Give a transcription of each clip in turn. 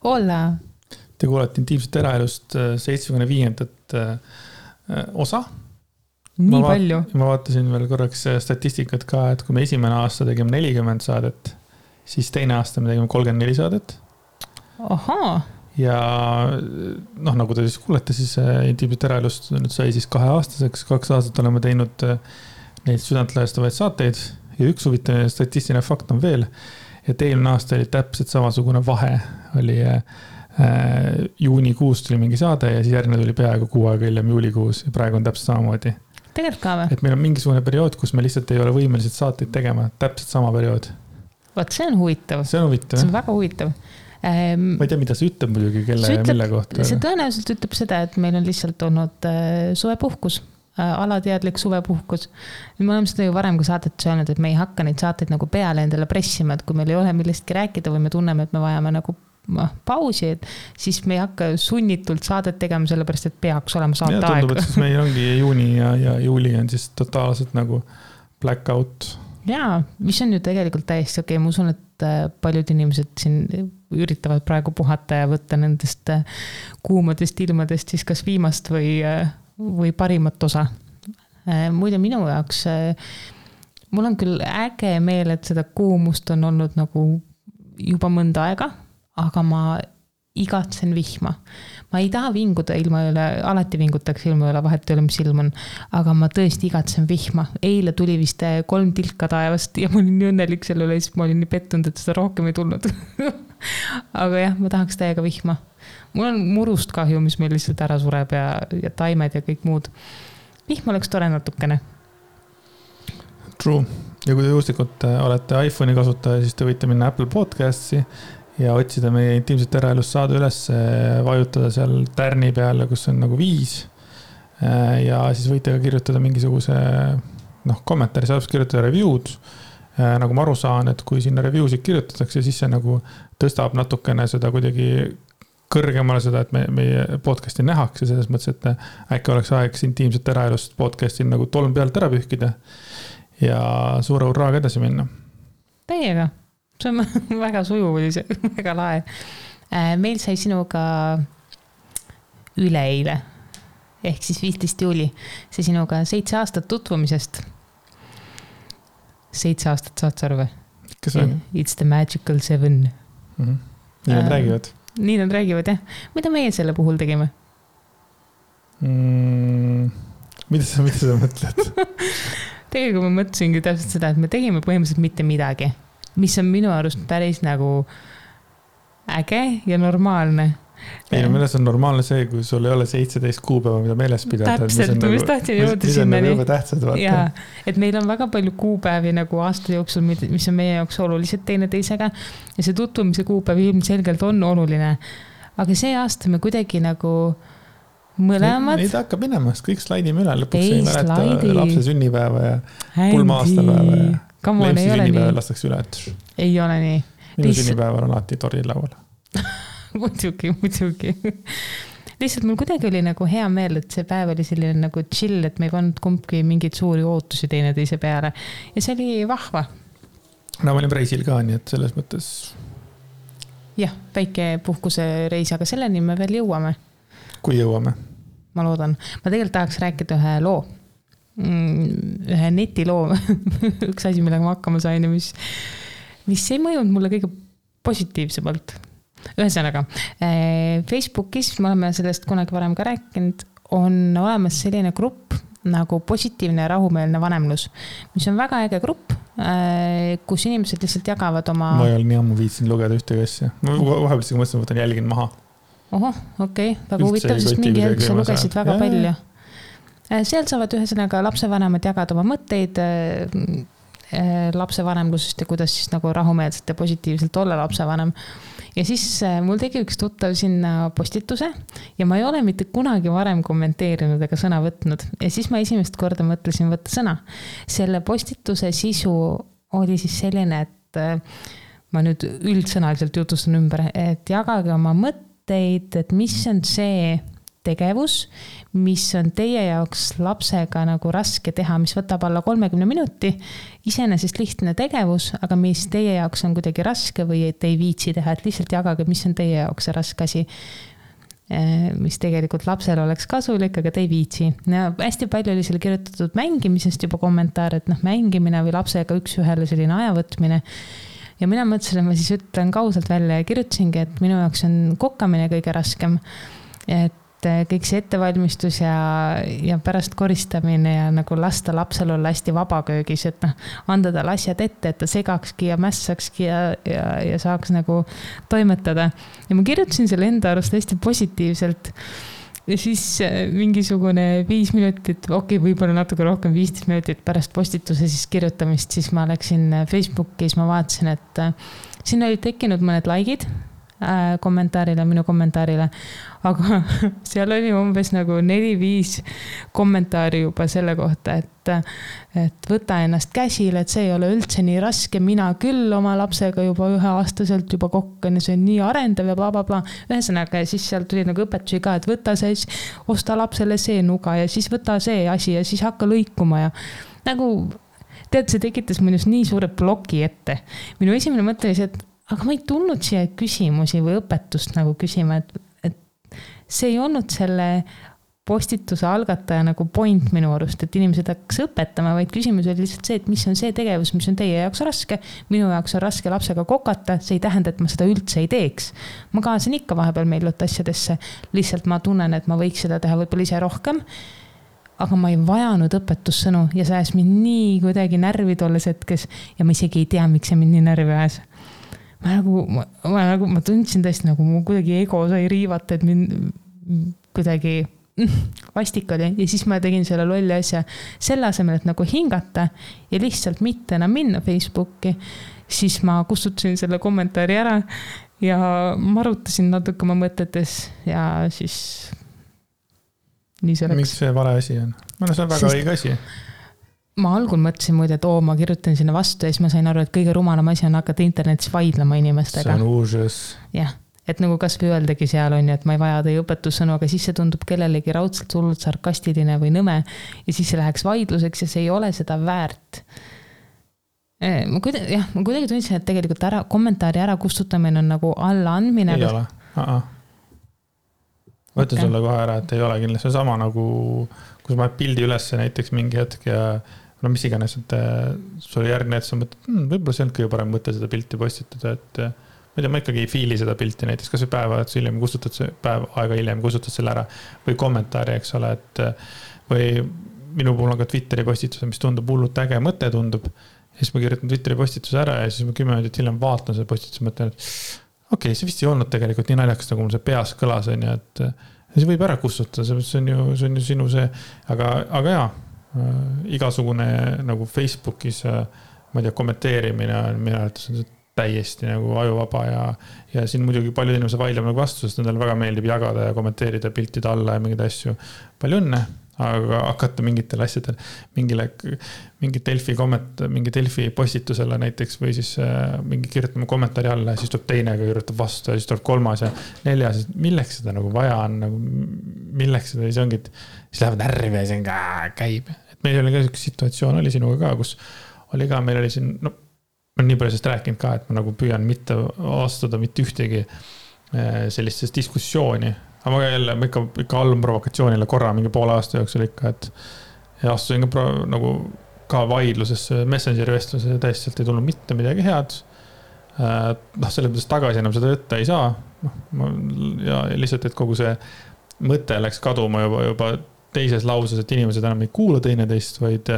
Hola! Te kuulete Intiimset eraelust 75. osa. Nii palju. Ma vaatasin veel korraks statistikat ka, et kui me esimene aasta tegime 40 saadet, siis teine aasta me tegime 34 saadet. Ahaa. Ja nagu te siis kuulete, siis Intiimset eraelust nüüd sai siis 2 aastaseks. 2 aastat oleme teinud neid südantlõhestavaid saateid ja üks huvitav statistiline fakt on veel, et eelmine aasta oli täpselt samasugune vahe. Oli juunikuus tuli mingi saade ja siis järgmine tuli peaaegu 6 aega hiljem juulikuus ja praegu on täpselt samamoodi. Tegelikult ka või? Et meil on mingisugune periood, kus me lihtsalt ei ole võimelised saateid tegema. Täpselt sama periood. Vaat see on huvitav. See on huvitav. See on väga huvitav. Ma ei tea, mida see ütleb muidugi, kelle ja mille kohta. See tõenäoliselt ütleb seda, et meil on lihtsalt olnud suvepuhkus, alateadlik suvepuhkus. Me oleme seda ju varem ka saadet öelnud, et me ei hakka neid saateid nagu peale endale pressima, et kui meil ei ole millestki rääkida või me tunneme, et me vajame nagu pausi, et siis me ei hakka sunnitult saadet tegema, sellepärast, et peaks olema saate aeg. Tundub, et siis meil ongi juuni ja juuli on siis totaalselt nagu blackout. Jaa, mis on ju tegelikult täiesti okei. Ma usun, et paljud inimesed siin üritavad praegu puhata ja võtta nendest kuumadest ilmadest siis kas viimast või parimat osa. Muide minu jaoks, mul on küll äge meel, et seda kuumust on olnud nagu juba mõnda aega, aga ma igatsen vihma. Ma ei taha vinguda ilma üle, alati vingutaks ilma üle, vahet ei ole, mis ilm on, aga ma tõesti igatsen vihma. Eile tuli vist 3 tilka taevast ja ma olin nii õnnelik selle üle, siis ma olin nii pettunud, et seda rohkem ei tulnud. Aga jah, ma tahaks täiega vihma. Mul on murust kahju, mis meil lihtsalt ära sureb ja taimed ja kõik muud. Vihm oleks tore natukene. True. Ja kui te juhuslikult olete iPhone'i kasutaja, siis te võite minna Apple Podcasti ja otsida meie Intiimset eraelust saada üles, vajutada seal tärni peale, kus on nagu 5. Ja siis võite ka kirjutada mingisuguse kommentaari, saab kirjutada review'd. Nagu ma aru saan, et kui sinna review'sid kirjutatakse, siis see nagu tõstab natukene seda kuidagi kõrgemale seda, et meie podcasti nähakse selles mõttes, et äkki oleks aeg Intiimset eraelust podcastil nagu tolm pealt ära pühkida ja suure urraaga edasi minna. Täiega. See on väga sujuv, oli see väga lae. Meil sai sinuga üleeile, ehk siis 15. juuli, see sinuga 7 aastat tutvumisest. 7 aastat saad sa arve? Kas on? It's the magical 7. Nii nad räägivad. Nii nad räägivad, jah. Mida meie selle puhul tegime? Mida sa mõtled? Tegelikult ma mõtlesingi täpselt seda, et me tegime põhimõtteliselt mitte midagi. Mis on minu arust päris nagu äge ja normaalne. Ei, milles on normaalne see, kui sul ei ole 17 kuupäeva, mida meeles pidada. Täpselt, ma just tahtsin jõuda sinna. Mis on nagu tähtsad, vaata. Jaa, et meil on väga palju kuupäevi nagu aasta jooksul, mis on meie jaoks olulised teineteisega ja see tutvumise kuupäev ilmselgelt on oluline. Aga see aasta me kuidagi nagu mõlemad. Neid hakkab minema, kõik slaidime üle. Lõpuks ei mäleta lapse sünnipäeva ja pulma-aastapäeva ja Leemsi sünnipäeva lastakse üle. Ei ole nii. Minu sünnipäeval on alati toril laual. Muidugi. Lihtsalt mul kuidagi oli nagu hea meel, et see päev oli selline nagu chill, et me ei pannud kumbki mingeid suuri ootusi teineteise peale. Ja see oli vahva. No ma olin reisil ka, nii et selles mõttes. Jah, väike puhkuse reis, aga selleni me veel jõuame. Kui jõuame? Ma loodan. Ma tegelikult tahaks rääkida ühe loo. Ühe netiloo. Üks asi, millega ma hakkama sain ja mis ei mõjunud mulle kõige positiivsemalt. Ühesõnaga, Facebookis, me oleme sellest kunagi varem ka rääkinud, on olemas selline grupp nagu positiivne ja rahumeelne vanemlus, mis on väga äge grupp, kus inimesed lihtsalt jagavad oma... Ma ei ole nii ammu viitsin lugeda ühtegi asja. Ma vahepeal mõtlesin, võtan jälgin maha. Ohoh, okei. Väga huvitav, sest mingi hetk sa lugesid väga palju. Seal saavad ühesõnaga lapsevanemad jagada oma mõtteid lapsevanemlusest ja kuidas siis nagu rahumeelselt ja positiivselt olla lapsevanem. Ja siis mul tegi üks tuttav sinna postituse ja ma ei ole mitte kunagi varem kommenteerinud ega sõna võtnud. Ja siis ma esimest korda mõtlesin võtta sõna. Selle postituse sisu oli siis selline, et ma nüüd üldsõnaliselt jutustan ümber, et jagage oma mõtteid, et mis on see tegevus, mis on teie jaoks lapsega nagu raske teha, mis võtab alla 30 minuti, iseenesest lihtne tegevus, aga mis teie jaoks on kuidagi raske või et ei viitsi teha, et lihtsalt jagage, mis on teie jaoks see raske asi, mis tegelikult lapsel oleks kasulik, aga te ei viitsi. Ja hästi palju oli seal kirjutatud mängimisest juba kommentaar, et mängimine või lapsega üks-ühele selline ajavõtmine. Ja mina mõtlesin, et ma siis ütlen kausalt välja ja kirjutasingi, et minu jaoks on kokkamine kõige raskem. Et kõik see ettevalmistus ja pärast koristamine ja nagu lasta lapsel olla hästi vabaköögis, et anda talle asjad ette, et ta segakski ja mässakski ja saaks nagu toimetada. Ja ma kirjutasin selle enda arust hästi positiivselt. Ja siis mingisugune 5 minutit, võib-olla natuke rohkem 15 minutit pärast postituse siis kirjutamist, siis ma läksin Facebooki, siis ma vaatasin, et siin olid tekkinud mõned likeid minu kommentaarile, aga seal oli umbes nagu 4-5 kommentaari juba selle kohta, et võta ennast käsile, et see ei ole üldse nii raske, mina küll oma lapsega juba 1-aastaselt juba kokkan ja see on nii arendav ja blablabla. Ühesõnaga, ja siis seal tuli nagu õpetusi ka, et võta see, osta lapsele see nuga ja siis võta see asi ja siis hakka lõikuma ja nagu, see tekitas minus nii suure bloki ette. Minu esimene mõte oli see, et aga ma ei tulnud siia küsimusi või õpetust nagu küsima, et see ei olnud selle postituse algataja nagu point minu arust, et inimesed hakkas õpetama, vaid küsimus oli lihtsalt see, et mis on see tegevus, mis on teie jaoks raske. Minu jaoks on raske lapsega kokata, see ei tähenda, et ma seda üldse ei teeks. Ma kaasan ikka vahepeal meilut asjadesse, lihtsalt ma tunnen, et ma võiks seda teha võib-olla ise rohkem, aga ma ei vajanud õpetussõnu ja see ajas mind nii kuidagi närvi tolles hetkes ja ma isegi ei tea, miks see mind nii närvi ajas. Ma tundsin tõesti nagu mu kuidagi ego sai riivata, et mind kuidagi vastik oli ja siis ma tegin selle lolli asja selle asemel, et nagu hingata ja lihtsalt mitte enam minna Facebooki, siis ma kustutasin selle kommentaari ära ja marutasin natuke oma mõtetes ja siis nii see läks. Miks see vale asi on? See on väga õige asi. Ma algul mõtlesin muide, et ma kirjutan sinna vastu ja siis ma sain aru, et kõige rumalam asi on hakata internetis vaidlema inimestega. See on uuses. Jah, et nagu kas või öeldagi seal on ju, et ma ei vaja teie õpetussõnu, aga siis see tundub kellelegi raudselt hullult sarkastiline või nõme ja siis see läheks vaidluseks ja see ei ole seda väärt. Ma kuidagi tundsin, et tegelikult kommentaari ära kustutamine on nagu alla andmine. Ei ole. Võtta sulle kohe ära, et ei ole kindlasti sama nagu, kus ma pildi ülesse näiteks mingi hetk ja mis iganes, et sulle järgne, et sa mõtled, võib-olla see on kõige parem mõte seda pilti postitada, et ma ikkagi ei fiili seda pilti näiteks, kas või päeva aega hiljem kustutad selle ära või kommentaari, eks ole, et või minu puhul on ka Twitteri postituse, mis tundub hullult äge mõte tundub ja siis ma kirjutan Twitteri postituse ära ja siis ma 10 minutit hiljem vaatan seda postituse mõtlen, et see vist ei olnud tegelikult nii naljakas, nagu mul see peas kõlas on ja et see võib ära kustutada, see on ju sinu see, aga jaa, igasugune nagu Facebookis, ma ei tea, kommenteerimine on minu arvates on täiesti nagu ajuvaba ja siin muidugi paljud inimesed vaidlevad nagu vastu, sest nendele väga meeldib jagada ja kommenteerida piltide alla ja mingeid asju. Palju õnne, aga hakata mingitel asjadel, mingi Delfi postitusele näiteks või siis mingi kirjutama kommentaari alla ja siis tuleb teine, kirjutab vastu ja siis tuleb 3. ja 4. Milleks seda nagu vaja on, nagu, milleks seda, siis ongi, siis lähevad närvi ja see on käib. Et meil oli ka üks situatsioon oli sinuga ka, kus oli ka, meil oli siin, ma olen nii palju sellest rääkinud ka, et ma nagu püüan mitte astuda mitte ühtegi sellistes diskussiooni. Aga ma jälle, ma ikka allun provokatsioonile korra mingi poole aasta jooksul ikka, et ja astusin ka nagu ka vaidlusesse Messengeri vestluse täiesti ei tulnud mitte midagi head. Selle mõttes tagasi enam seda võtta ei saa. Ja lihtsalt, et kogu see mõte läks kaduma juba teises lauses, et inimesed enam ei kuula teineteist, vaid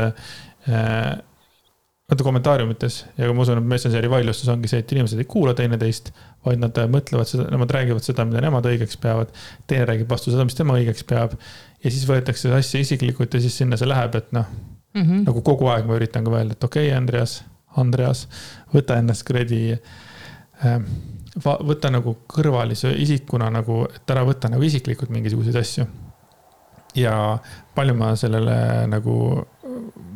kommentaariumites ja ma usun, et Messengeri vaidlustus ongi see, et inimesed ei kuula teineteist, vaid nad mõtlevad seda, nemad räägivad seda, mida nemad õigeks peavad, teine räägib vastu seda, mis tema õigeks peab ja siis võetakse see asja isiklikult ja siis sinna see läheb, et nagu kogu aeg ma üritan ka öelda, et okei, Andreas, võta ennast kredi, võta nagu kõrvalise isikuna, nagu, et ära võta nagu isiklikult mingisuguseid asju ja palju ma sellele nagu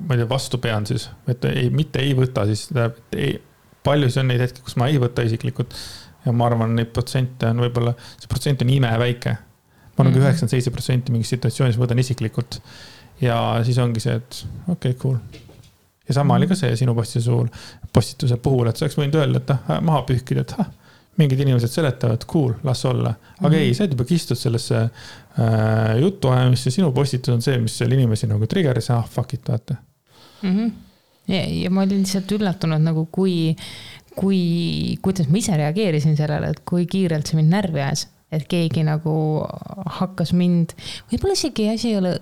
ma ei tea, vastu pean siis, et mitte ei võta siis, palju see on neid hetki, kus ma ei võta isiklikult ja ma arvan, neid protsente on võib-olla, see protsent on imeväike. Ma ma olen 97% mingis situatsioonis võtan isiklikult. Ja siis ongi see, et okei, cool. Ja sama oli ka see sinu postituse puhul, et sa oleks võinud öelda, et maha pühkida, et mingid inimesed seletavad, cool, las olla. Aga ei, sa juba kistud sellesse jutuajamisse, sinu postitus on see, mis seal inimesi nagu triggeris, fuck it, vaata. Ja ma olin lihtsalt üllatunud, nagu kuidas ma ise reageerisin sellele, et kui kiirelt see mind närvi ajas, et keegi nagu hakkas mind, võib-olla isegi asi ei ole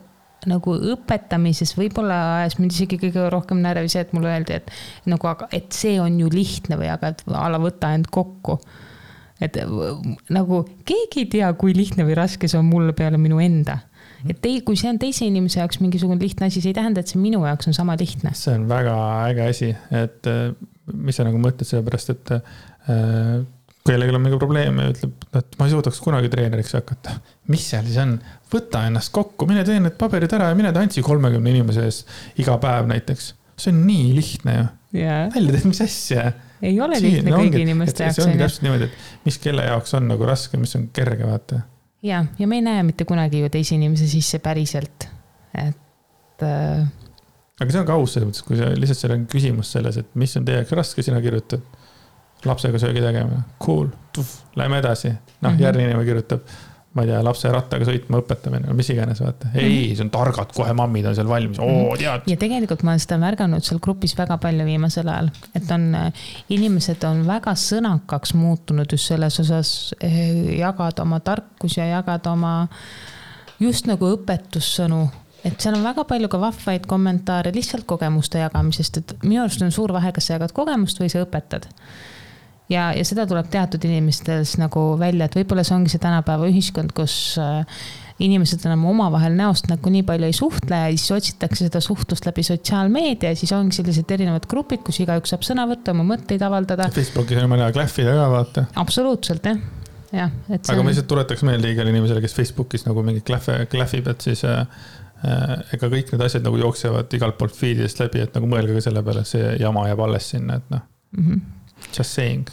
nagu õpetamises, võib-olla ajas mind isegi kõige rohkem närvi see, et mulle öeldi, et see on ju lihtne või aga ala võta end kokku. Et nagu keegi ei tea, kui lihtne või raske see on mulle peale minu enda. Et kui see on teise inimese jaoks mingisugune lihtne asi, see ei tähenda, et see minu jaoks on sama lihtne. See on väga äge asi, et mis sa nagu mõtled selle pärast, et kellelgi on mingi probleem ja ütleb, et ma ei suudaks kunagi treeneriks hakata. Mis seal siis on? Võta ennast kokku, mine tee need paberid ära ja mine tantsi 30 inimese ees iga päev näiteks. See on nii lihtne ju. Välja teed, mis asja. Ei ole lihtne kõigi inimeste jaoks. See ongi täpselt niimoodi, et mis kelle jaoks on nagu raske, mis on kerge, vaata. Ja me ei näe mitte kunagi ju teise inimese sisse päriselt. Aga see on ka aus selles mõttes, kui lihtsalt seal on küsimus selles, et mis on teie jaoks raske, sina kirjutad lapsega söögi tegema. Cool, lähme edasi. Järgmine inimene kirjutab, ma ei tea, lapse rattaga sõitma õpetamine, mis iganes, vaata. Ei, see on targad, kohe mammid on seal valmis. Tead. Ja tegelikult ma olen seda märganud seal grupis väga palju viimasel ajal, et inimesed on väga sõnakaks muutunud just selles osas jagada oma tarkus ja jagada oma just nagu õpetussõnu. Et seal on väga palju ka vahvaid kommentaare lihtsalt kogemuste jagamisest, et minu arust on suur vahe, kas sa jagad kogemust või sa õpetad. Ja seda tuleb teatud inimestes nagu välja, et võib-olla see ongi see tänapäeva ühiskond, kus inimesed enam omavahel näost nagu nii palju ei suhtle ja siis otsitakse seda suhtlust läbi sotsiaalmeedia ja siis ongi sellised erinevad grupid, kus igaüks saab sõna võtta, oma mõtteid avaldada. Facebookis on mõne klähvida ka, vaata. Absoluutselt, jah. Aga ma lihtsalt tuletaks meelde igale inimesele, kes Facebookis nagu mingi klähvib, et siis ega kõik need asjad nagu jooksevad igalt poolt feedidest läbi, et nagu mõelge ka selle peale, see jama jääb alles sinna, et just saying.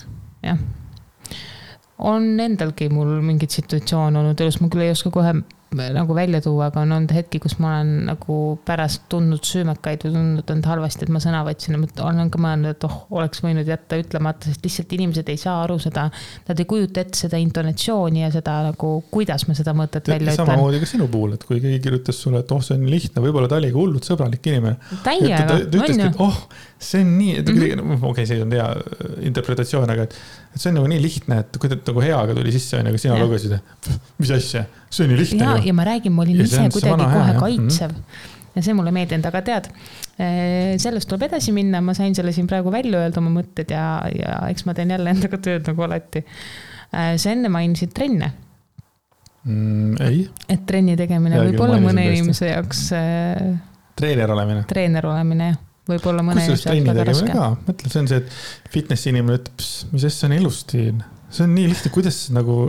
Jah. On endalgi mul mingid situatsioon olnud elus, ma küll ei oska kohe nagu välja tuua, aga on olnud hetki, kus ma olen nagu pärast tundnud süümekaid või tundnud end halvasti, et ma sõna võtsin ja olen ka mõelnud, et oleks võinud jätta ütlemata, sest lihtsalt inimesed ei saa aru seda, nad ei kujuta ette seda intonatsiooni ja seda nagu, kuidas ma seda mõtet välja ütlen. Samamoodi ka sinu puhul, et kui keegi kirjutas sulle, et see on lihtne, võib-olla ta oli ka hullult sõbralik inimene. Täiega, on ju. See on nii, okei, see on hea interpretatsioon, aga see on nagu nii lihtne, et kui ta nagu heaga tuli sisse, aga sina lugesid, mis asja, see on nii lihtne. Ja ma räägin, ma olin ise kuidagi kohe kaitsev ja see mulle meeldinud, aga tead, sellest tuleb edasi minna, ma sain selle siin praegu välja öelda oma mõtted ja eks ma teen jälle endaga tööd nagu alati. Sa enne mainisid trenne. Ei. Et trenni tegemine võib olla mõne inimese jaoks treener olemine, võib-olla mõne inimese jaoks väga raske. Mõtle, see on see, et fitnessi inimene ütleb, mis see on ilustiin. See on nii lihtne, kuidas nagu...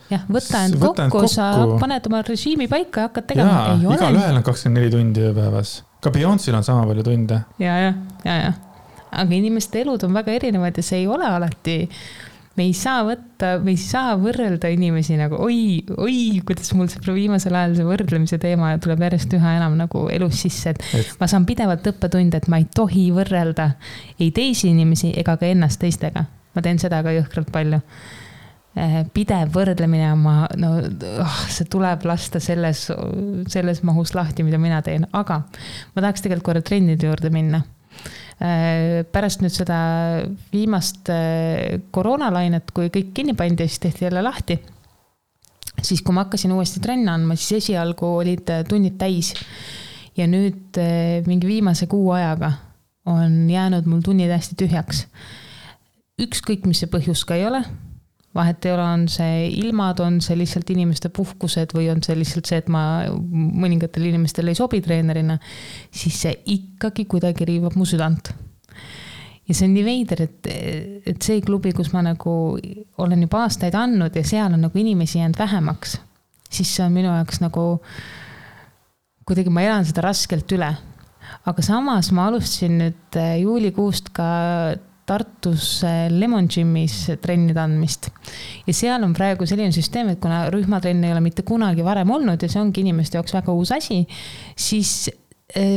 Jah, võta end kokku, sa paned oma režiimi paika ja hakkad tegema. Jaa, igal ühel on 24 tundi ööpäevas. Ka Beyoncé'l on sama palju tunde. Ja. Aga inimeste elud on väga erinevad ja see ei ole alati... Me ei saa võrrelda inimesi nagu, oi, kuidas mul see viimasel ajal see võrdlemise teema tuleb järjest üha enam nagu elus sisse, et ma saan pidevalt õppetunde, et ma ei tohi võrrelda ei teisi inimesi ega ka ennast teistega. Ma teen seda ka jõhkralt palju. Pidev võrdlemine, see tuleb lasta selles mahus lahti, mida mina teen, aga ma tahaks tegelikult korra trennide juurde minna. Pärast nüüd seda viimast koroonalainet, kui kõik kinni pandi ja siis tehti jälle lahti, siis kui ma hakkasin uuesti trenni andma, siis esialgu olid tunnid täis ja nüüd mingi viimase kuu ajaga on jäänud mul tunnid hästi tühjaks. Ükskõik, mis see põhjus ka ei ole, vahet ei ole, on see ilmad, on see lihtsalt inimeste puhkused või on see lihtsalt see, et ma mõningatel inimestel ei sobi treenerina, siis see ikkagi kuidagi riivab mu südant. Ja see on nii veider, et see klubi, kus ma nagu olen juba aastaid andnud ja seal on nagu inimesi jäänud vähemaks, siis see on minu jaoks nagu kuidagi ma elan seda raskelt üle. Aga samas ma alustasin nüüd juulikuust ka Tartus Lemon Gymis trennide andmist. Ja seal on praegu selline süsteem, et kuna rühmatrenn ei ole mitte kunagi varem olnud ja see ongi inimeste jaoks väga uus asi, siis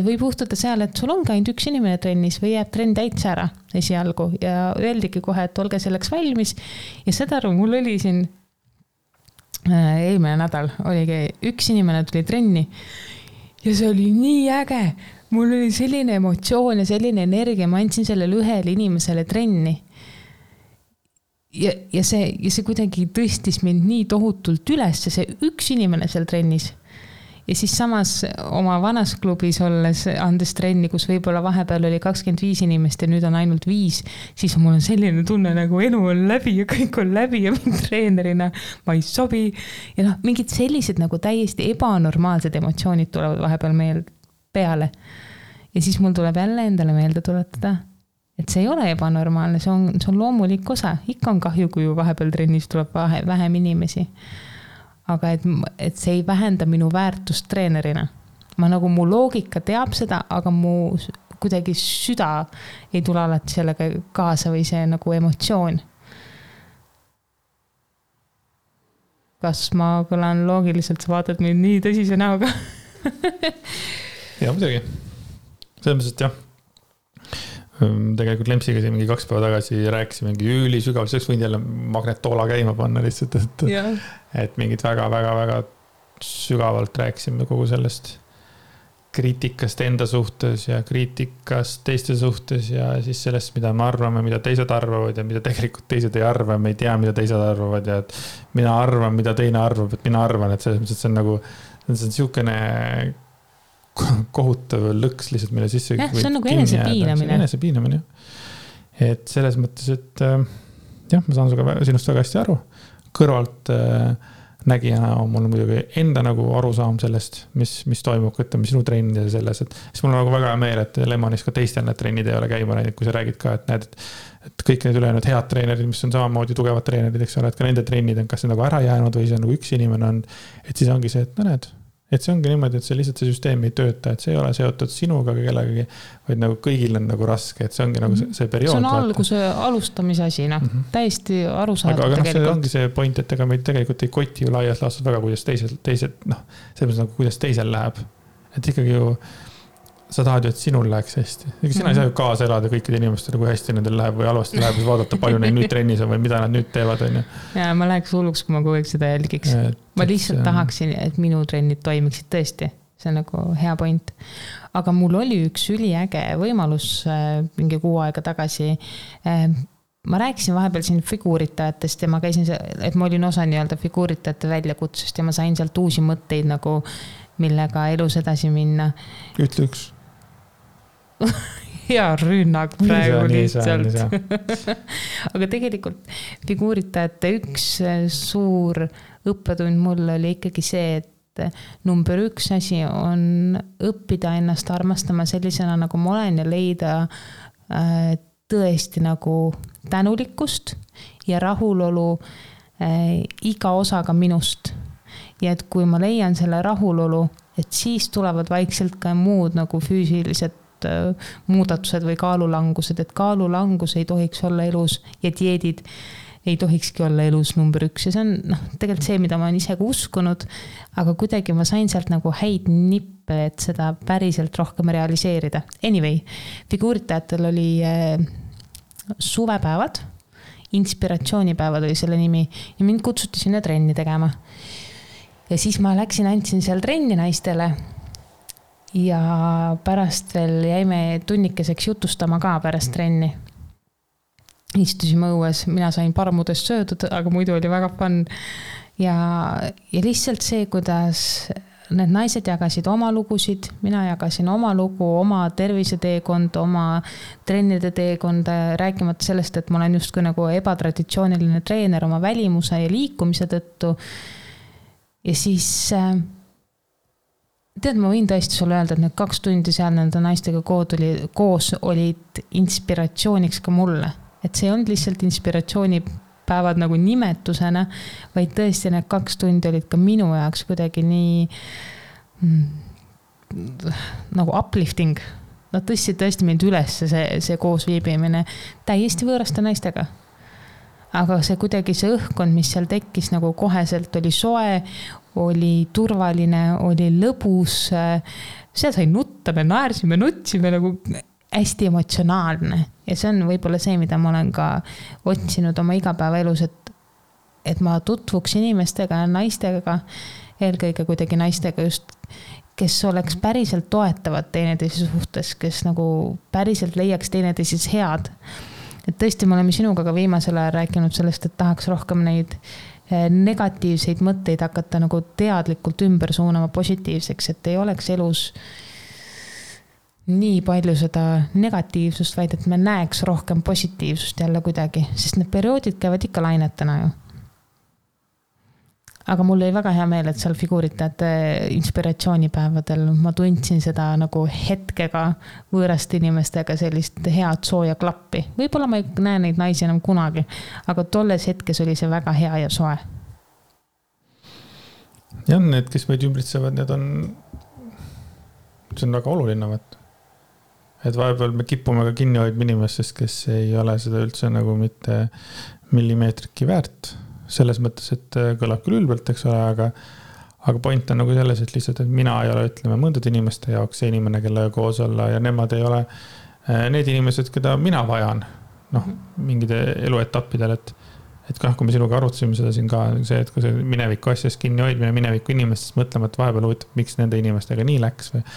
võib juhtuda seal, et sul ongi ainult üks inimene trennis või jääb trenn täitsa ära esialgu ja öeldigi kohe, et olge selleks valmis. Ja seda mul oli siin eelmine nädal, oligi üks inimene tuli trenni ja see oli nii äge. Mul oli selline emotsioon ja selline energia, ma andsin sellele ühele inimesele trenni. Ja see kuidagi tõstis mind nii tohutult üles, see üks inimene seal trennis. Ja siis samas oma vanas klubis olles andes trenni, kus võib-olla vahepeal oli 25 inimest ja nüüd on ainult 5, siis mul on selline tunne, nagu elu on läbi ja kõik on läbi ja mind treenerina ma ei sobi. Ja mingid sellised nagu täiesti ebanormaalsed emotsioonid tulevad vahepeal meil peale. Ja siis mul tuleb jälle endale meelde tuletada, et see ei ole ebanormaalne, see on loomulik osa. Ikka on kahju, kui vahepeal trennis tuleb vähem inimesi. Aga et see ei vähenda minu väärtust treenerina. Ma nagu mu loogika teab seda, aga mu kuidagi süda ei tule alati sellega kaasa või see nagu emotsioon. Kas ma kõlan loogiliselt, sa vaatad mind nii tõsise näoga? Ja, muidugi. Selles mõttes, et jah. Tegelikult Lempsiga siin mingi 2 päeva tagasi rääkisime mingi ülisügav, selleks võin jälle magnetoola käima panna lihtsalt, et mingid väga sügavalt rääkisime kogu sellest kriitikast enda suhtes ja kriitikast teiste suhtes ja siis sellest, mida me arvame, mida teised arvavad ja mida tegelikult teised ei arva, me ei tea, mida teised arvavad ja et mina arvan, mida teine arvab, et mina arvan, et selles mõttes, et see on nagu see on siukene kohutav lõks lihtsalt meile sisse. Jah, see on nagu enesepiinamine. Et selles mõttes, et jah, ma saan sinust väga hästi aru. Kõrvalt nägijana on mul muidugi enda nagu arusaam sellest, mis toimub, ütleme sinu trennid ja selles, et siis mul on nagu väga meel, et Lemonis ka teistel need trennid ei ole käima läinud, kui sa räägid ka, et näed, et kõik need ülejäänud head treenerid, mis on samamoodi tugevad treenerid, eks ole, et ka nende trennid on kas nagu ära jäänud või see nagu üks inimene on, et siis ongi see, et näed, et see ongi niimoodi, et see lihtsalt see süsteem ei tööta, et see ei ole seotud sinuga kellegagi, vaid nagu kõigil on nagu raske, et see ongi nagu see periood. See on alguse alustamise asi, täiesti arusaadav aga tegelikult. See ongi see point, et ega meid tegelikult ei koti ju laias laastus väga, kuidas teised selles nagu kuidas teisel läheb. Et ikkagi ju sa tahad ju, et sinul läheks hästi. Sina ei saa ju kaasa elada kõikide inimestele, kui hästi nendel läheb või halvasti läheb, siis vaadata, palju neid nüüd trennis on või mida nad nüüd teevad. Ja ma läheks hulluks, kui ma kogu aeg seda jälgiks. Ma lihtsalt tahaksin, et minu trennid toimiksid tõesti. See on nagu hea point. Aga mul oli üks üliäge võimalus mingi 6 aega tagasi. Ma rääkisin vahepeal siin figuuritajatest ja ma käisin, et ma olin osa nii-öelda figuuritajate väljakutsust ja ma sain sealt uusi mõtteid nagu millega elus edasi minna. Ütle üks. Hea rünnak praegu lihtsalt. Aga tegelikult figuuritajate üks suur õppetund mul oli ikkagi see, et number 1 asi on õppida ennast armastama sellisena, nagu ma olen ja leida tõesti nagu tänulikkust ja rahulolu iga osaga minust. Ja et kui ma leian selle rahulolu, et siis tulevad vaikselt ka muud nagu füüsilised muudatused või kaalulangused, et kaalulangus ei tohiks olla elus ja dieedid ei tohikski olla elus number 1 ja see on tegelikult see, mida ma olen ise ka uskunud, aga kuidagi ma sain sealt nagu häid nippe, et seda päriselt rohkem realiseerida. Anyway, figuuritajatel oli suvepäevad, inspiratsioonipäevad oli selle nimi ja mind kutsuti sinna trenni tegema. Ja siis ma andsin seal trenni naistele ja pärast veel jäime tunnikeseks jutustama ka pärast trenni. Istusime õues, mina sain parmudest söödud, aga muidu oli väga fun. Ja lihtsalt see, kuidas need naised jagasid oma lugusid, mina jagasin oma lugu, oma terviseteekond, oma trennide teekonda, rääkimata sellest, et ma olen justkui nagu ebatraditsiooniline treener oma välimuse ja liikumise tõttu. Ja siis tead, ma võin tõesti sulle öelda, et need 2 tundi seal nende naistega koos olid inspiratsiooniks ka mulle. Et see on lihtsalt inspiratsioonipäevad nagu nimetusena, vaid tõesti need 2 tundi olid ka minu jaoks kuidagi nii nagu uplifting. nad tõstsid tõesti mind üles see koos viibimine täiesti võõraste naistega. Aga see kuidagi see õhkkond, mis seal tekkis nagu koheselt oli soe, oli turvaline, oli lõbus, seal sai nutta, me naersime, nutsime nagu hästi emotsionaalne ja see on võib-olla see, mida ma olen ka otsinud oma igapäevaelus, et ma tutvuks inimestega ja naistega, eelkõige kuidagi naistega just, kes oleks päriselt toetavad teineteise suhtes, kes nagu päriselt leiaks teineteises head. Et tõesti, me oleme sinuga ka viimasel ajal rääkinud sellest, et tahaks rohkem neid negatiivseid mõtteid hakata nagu teadlikult ümber suunama positiivseks, et ei oleks elus nii palju seda negatiivsust, vaid et me näeks rohkem positiivsust jälle kuidagi, sest need perioodid käivad ikka lainetena ju. Aga mul oli väga hea meel, et seal figuuritajate inspiratsioonipäevadel ma tundsin seda nagu hetkega võõraste inimestega sellist head sooja klappi. Võib-olla ma ei näe neid naisi enam kunagi, aga tolles hetkes oli see väga hea ja soe. Ja need, kes meid ümbritsevad, see on väga oluline. Et vahepeal me kipume ka kinni hoidma inimestest, kes ei ole seda üldse nagu mitte millimeetrikki väärt. Selles mõttes, et kõlab küll ülbelt, eks ole, aga point on nagu selles, et lihtsalt, et mina ei ole, ütleme, mõndade inimeste jaoks see inimene, kelle koos olla ja nemad ei ole need inimesed, keda mina vajan, mingide eluetappidel, et kui me sinuga arutasime seda siin ka, see, et kui see mineviku asjast kinni hoidmine mineviku inimestest mõtlema, et vahepeal huvitav, miks nende inimestega nii läks või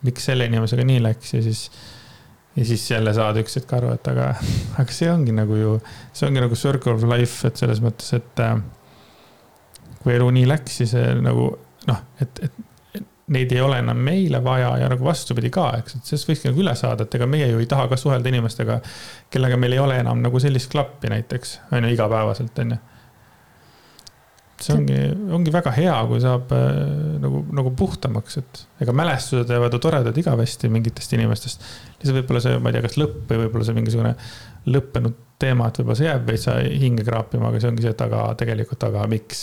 miks selle inimesega nii läks ja siis jälle saad üks hetk aru, et aga see ongi nagu circle of life, et selles mõttes, et kui elu nii läks, siis nagu, et neid ei ole enam meile vaja ja nagu vastupidi ka, eks, et sellest võikski nagu üle saada, et ega meie ju ei taha ka suhelda inimestega, kellega meil ei ole enam nagu sellist klappi näiteks, on ju igapäevaselt, on ju. See ongi väga hea, kui saab nagu puhtamaks, et ega mälestused jäävad toredad igavesti mingitest inimestest. Lihtsalt võib-olla see, ma ei tea, kas lõpp või võib-olla see mingisugune lõppenud teema, et võib-olla see jääb veits hinge kraapima, aga see ongi see, et tegelikult miks?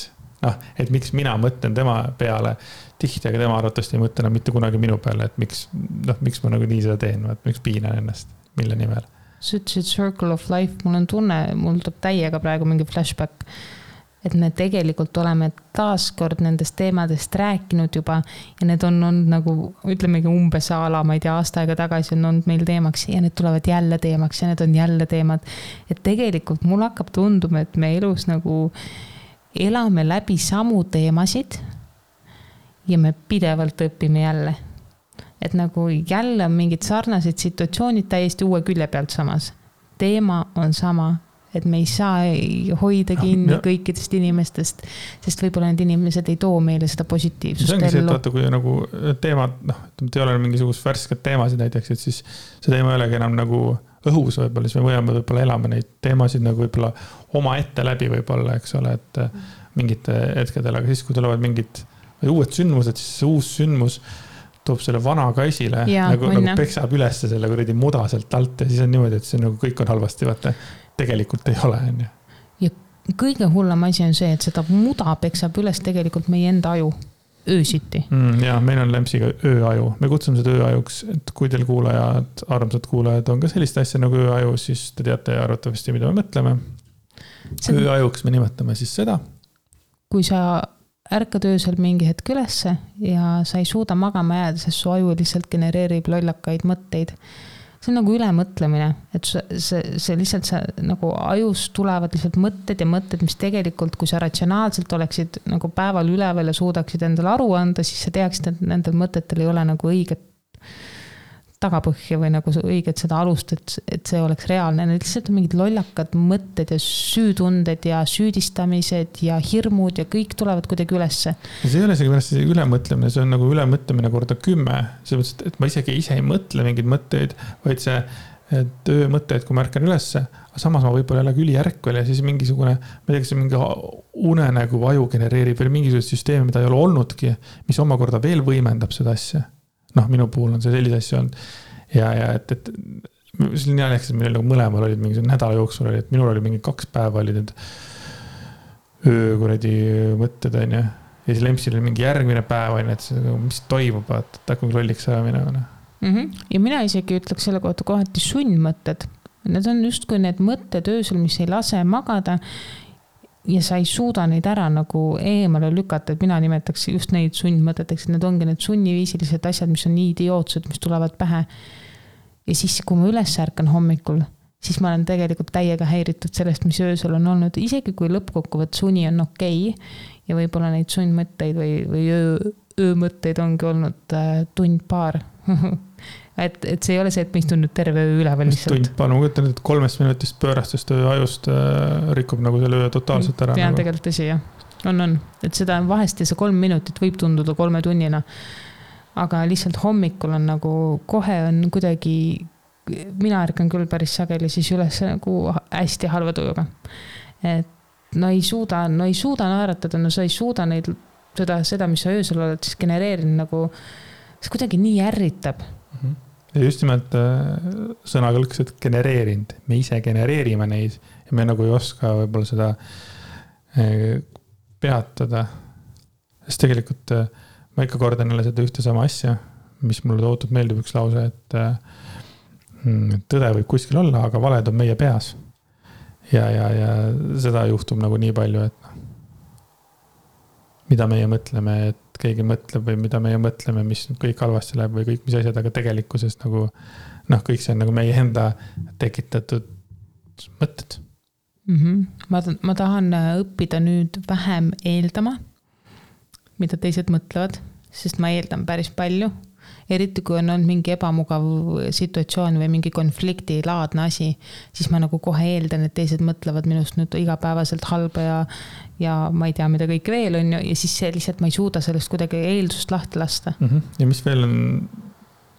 Et miks mina mõtlen tema peale tihti, aga tema arvatavasti ei mõtle mitte kunagi minu peale, et miks ma nagu nii seda teen, et miks piinan ennast, mille nimel. Sa ütlesid circle of life, mul on tunne, mul tuleb täiega praegu mingi flashback, et me tegelikult oleme taaskord nendest teemadest rääkinud juba ja need on nagu, ütlemegi umbes ala, ma ei tea, aasta aega tagasi on olnud meil teemaks ja need tulevad jälle teemaks ja need on jälle teemad. Et tegelikult mul hakkab tunduma, et me elus nagu elame läbi samu teemasid ja me pidevalt õpime jälle. Et nagu jälle on mingid sarnased situatsioonid täiesti uue külje pealt samas. Teema on sama. Et me ei saa hoida kinni kõikidest inimestest, sest võib-olla need inimesed ei too meile seda positiivsust. See ongi see, et vaata, kui nagu teemad, ei ole mingisugust värsked teemasid näiteks, et siis see teema ei olegi enam nagu õhus võib-olla, siis me võime elame neid teemasid nagu võib-olla oma ette läbi võib-olla, eks ole, et mingite hetkedel, aga siis, kui tulevad mingid uued sündmused, siis see uus sündmus toob selle vana ka esile, nagu peksab üles selle kuradi muda sealt alt ja siis on niimoodi, et see nagu kõik on halvasti, vaata. Tegelikult ei ole, on ju. Ja kõige hullem asi on see, et seda muda peksab üles tegelikult meie enda aju öösiti. Ja meil on Lempsiga ööaju. Me kutsume seda ööajuks, et kui teil kuulajad, armsad kuulajad on ka sellist asja nagu ööaju, siis te teate arvatavasti, mida me mõtleme. Ööajuks me nimetame siis seda. Kui sa ärkad öösel mingi hetk ülesse ja sa ei suuda magama jääda, sest su aju lihtsalt genereerib lollakaid mõtteid. See on nagu ülemõtlemine, et see lihtsalt nagu ajus tulevad lihtsalt mõtted ja mõtted, mis tegelikult, kui sa ratsionaalselt oleksid nagu päeval üleval ja suudaksid endale aru anda, siis sa teaksid, et nendel mõtetel ei ole nagu õiget tagapõhja või nagu õiget seda alust, et see oleks reaalne. Need lihtsalt on mingid lollakad mõtted ja süütunded ja süüdistamised ja hirmud ja kõik tulevad kuidagi ülesse. See ei ole isegi pärast ülemõtlemine, see on nagu ülemõtlemine korda 10. See mõttes, et ma isegi ise ei mõtle mingeid mõtteid, vaid see töömõtteid, kui ma ärkan ülesse, aga samas ma võib-olla jälle ülijärkvel ja siis mingisugune, ma ei tea, mingi unenägu aju genereerib veel mingisugust süsteemi, mida ei ole olnudki, mis omakorda veel võimendab seda asja. Minu puhul on see sellise asja olnud. Ja et see oli nii aleks, et meil nagu mõlemal olid mingi nädala jooksul oli, et minul oli mingi 2 päeva olid need öökuradi mõtted, on ju. Ja siis Lempsil oli mingi järgmine päev, on, et see, mis toimub, et hakkab lolliks ära minema. Ja mina isegi ütleks selle kohta kohati sundmõtted. Need on justkui need mõtted öösel, mis ei lase magada ja sa ei suuda neid ära nagu eemale lükata, et mina nimetaks just neid sundmõteteks, et need ongi need sunniviisilised asjad, mis on nii idiootsed, mis tulevad pähe. Ja siis, kui ma üles ärkan hommikul, siis ma olen tegelikult täiega häiritud sellest, mis öösel on olnud. Isegi kui lõppkokkuvõtt suni on okei ja võib-olla neid sundmõtteid või öömõtteid ongi olnud tund-paar. et see ei ole see, et ma istun nüüd terve öö üleval lihtsalt. Tund-paar, ma kujutan, et 3 minutist pöörastest öö ajust rikub nagu selle öö totaalselt ära. Pean nagu. Tegelikult tõsi, jah. On. Et seda vahest ja see 3 minutit võib tunduda 3 tunnina. Aga lihtsalt hommikul on nagu, kohe on kuidagi, mina ärkan küll päris sageli siis üles nagu hästi halva tujuga. Et no ei suuda naeratada, no sa ei suuda neid, seda, mis sa öösel oled siis genereerinud nagu, see kuidagi nii ärritab. Ja just nimelt sõnakõlks, et genereerinud. Me ise genereerime neid ja me nagu ei oska võib-olla seda peatada. Sest tegelikult ma ikka kordan jälle seda ühte sama asja, mis mulle tohutult meeldib üks lause, et tõde võib kuskil olla, aga valed on meie peas. Ja seda juhtub nagu nii palju, et mida meie mõtleme, et keegi mõtleb või mida meie mõtleme, mis kõik halvasti läheb või kõik mis asjad, aga tegelikkuses nagu, kõik see on nagu meie enda tekitatud mõtted. Ma tahan õppida nüüd vähem eeldama, mida teised mõtlevad, sest ma eeldan päris palju. Eriti kui on olnud mingi ebamugav situatsioon või mingi konflikti laadne asi, siis ma nagu kohe eeldan, et teised mõtlevad minust nüüd igapäevaselt halba ja ma ei tea, mida kõik veel on ja siis see lihtsalt ma ei suuda sellest kuidagi eeldust lahti lasta. Ja mis veel on,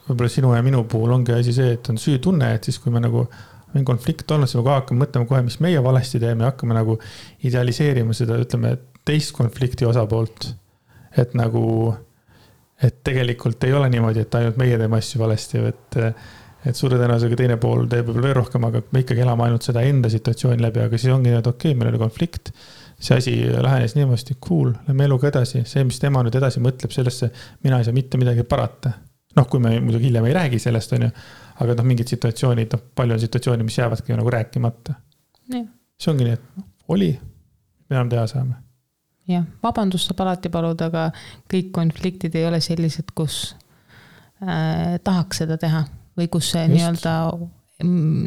võib-olla sinu ja minu puhul ongi asi see, et on süütunne, et siis kui me nagu on konflikt olnud, siis me hakkame mõtlema kohe, mis meie valesti teeme, hakkame nagu idealiseerima seda, ütleme, teist konflikti osapoolt, et nagu et tegelikult ei ole niimoodi, et ainult meie teeme asju valesti, et suure tõenäosusega teine pool teeb võib-olla veel rohkem, aga me ikkagi elame ainult seda enda situatsiooni läbi, aga siis ongi, et okei, meil oli konflikt, see asi lähenes niimoodi, cool, lähme eluga edasi, see, mis tema nüüd edasi mõtleb sellesse, mina ei saa mitte midagi parata. Kui me muidugi hiljem ei räägi sellest, on ju, aga mingid situatsioonid, palju on situatsiooni, mis jäävadki nagu rääkimata. Ja. See ongi nii, et oli, me enam teha saame. Jah, vabandust saab alati paluda, aga kõik konfliktid ei ole sellised, kus tahaks seda teha või kus see nii-öelda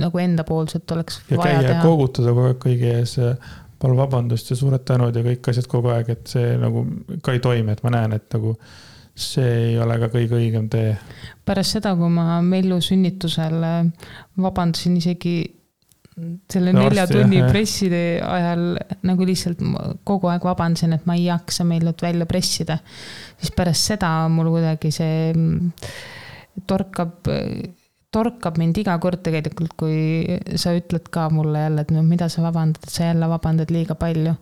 nagu endapoolselt oleks ja vaja teha. Ja koogutada kogu aeg kõigi ees, palju vabandust ja suured tänud ja kõik asjad kogu aeg, et see nagu ka ei toimi, et ma näen, et nagu see ei ole ka kõige õigem tee. Pärast seda, kui ma Mellu sünnitusel vabandasin isegi selle 4 tunni presside ajal nagu lihtsalt kogu aeg vabandasin, et ma ei jaksa Mellut välja pressida. Siis pärast seda mul kuidagi see torkab mind iga kord tegelikult, kui sa ütled ka mulle jälle, et mida sa vabandad, et sa jälle vabandad liiga palju.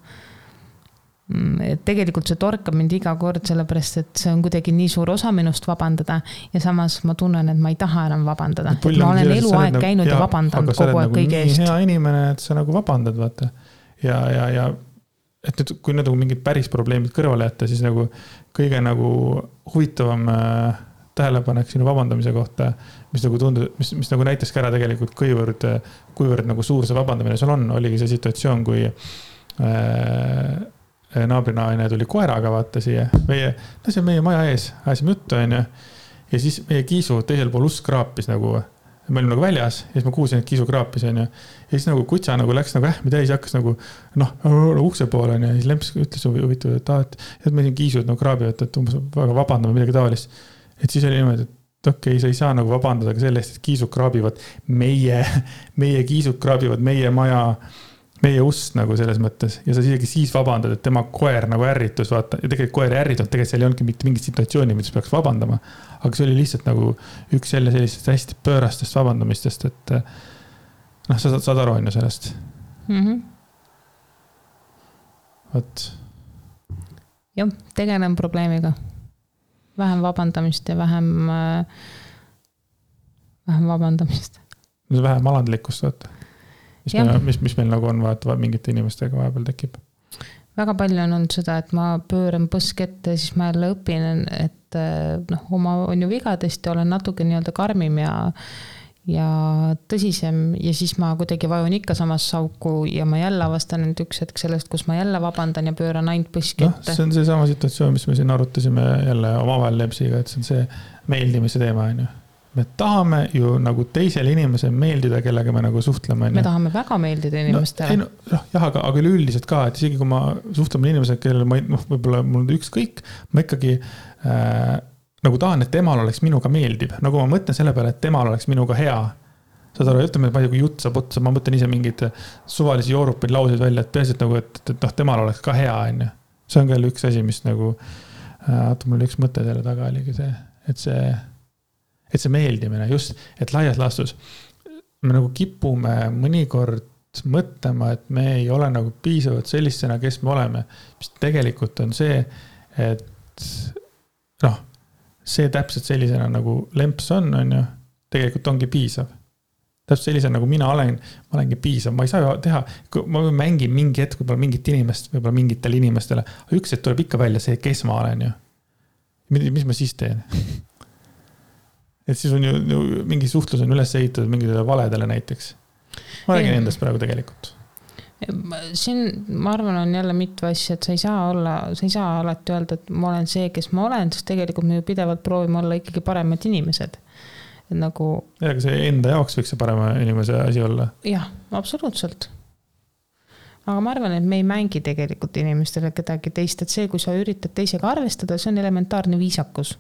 Tegelikult see torkab mind iga kord, sellepärast, et see on kuidagi nii suur osa minust vabandada ja samas ma tunnen, et ma ei taha enam vabandada. Et ma olen eluaeg käinud ja vabandanud kogu aeg kõige eest. Hea inimene, et sa nagu vabandad, vaata. Ja et nüüd, kui nagu mingid päris probleemid kõrvale jätta, siis nagu kõige nagu huvitavam tähelepanek sinu vabandamise kohta, mis nagu tundub, mis nagu näitaski ära tegelikult kuivõrd nagu suur see vabandamine sul on, oligi see situatsioon, kui naabrinaine tuli koeraga vaata siia, see on meie maja ees, ajasime juttu, on ju, ja siis meie kiisu teisel pool usk kraapis nagu, me olime nagu väljas, ja siis ma kuulsin, et kiisu kraapis, on ju, ja siis nagu kutsa nagu läks nagu ähmi täis, hakkas nagu, ukse poole, on ju, ja siis Lemps ütles huvitav, et meil siin kiisud nagu kraabivad, et umbes väga vabandame midagi tavalist, et siis oli niimoodi, et okei, sa ei saa nagu vabandada ka sellest, et kiisud kraabivad meie kiisud kraabivad meie maja meie ust nagu selles mõttes ja sa isegi siis vabandad, et tema koer nagu ärritus, vaata, ja tegelikult koer ärritud, tegelikult seal ei olnudki mitte mingit situatsiooni, mis peaks vabandama, aga see oli lihtsalt nagu üks sellisest hästi pöörastest vabandamistest, et sa saad aru on ju sellest. Võt. Jah, tegelen probleemiga. Vähem vabandamist ja vähem vabandamist. Vähem alandlikkust, vaata. Mis meil nagu on vaata mingite inimestega vahepeal tekib? Väga palju on olnud seda, et ma pööran põsk ette, siis ma jälle õpin, et sellest oma on ju vigadest ja olen natuke nii-öelda karmim ja tõsisem ja siis ma kuidagi vajun ikka samas sauku ja ma jälle avastan nüüd üks hetk sellest, kus ma jälle vabandan ja pööran ainult põski ette. See on see sama situatsioon, mis me siin arutasime jälle omavahel Lepsiga, et see on see meeldimise teema, on ju. Me tahame ju nagu teisele inimesele meeldida, kellega me nagu suhtleme. Me tahame väga meeldida inimestele. Aga üleüldiselt ka, et isegi kui ma suhtleme inimesele, kellele võib-olla mul on ükskõik, ma ikkagi nagu tahan, et temal oleks minuga meeldib. Nagu ma mõtlen selle peale, et temal oleks minuga hea. Saad aru, ütleme, et ma ei tea, kui jutt saab otsa, ma mõtlen ise mingid suvalisi joorupeid lauseid välja, et peaasi, et nagu, et temal oleks ka hea, on ju. See on ka üks asi, mis nagu, mul üks mõte selle taga oligi see, et see meeldimine just, et laias laastus me nagu kipume mõnikord mõtlema, et me ei ole nagu piisavalt sellistena, kes me oleme. Mis tegelikult on see, et see täpselt sellisena nagu lemps on ju, tegelikult ongi piisav. Täpselt sellisena nagu mina olen, ma olengi piisav. Ma ei saa ju teha, ma mängin mingi hetk võib-olla mingit inimest, võib-olla mingitele inimestele, aga üks hetk tuleb ikka välja see, kes ma olen ju. Mis ma siis teen? Et siis on ju mingi suhtlus on üles ehitatud mingitele valedele näiteks. Ma räägin endast praegu tegelikult. Siin, ma arvan, on jälle mitu asja, et sa ei saa alati öelda, et ma olen see, kes ma olen, sest tegelikult me ju pidevalt proovime olla ikkagi paremad inimesed. Et nagu... Ja, aga see enda jaoks võiks see parema inimese asi olla. Jah, absoluutselt. Aga ma arvan, et me ei mängi tegelikult inimestele kedagi teist, et see, kui sa üritad teisega arvestada, see on elementaarne viisakus.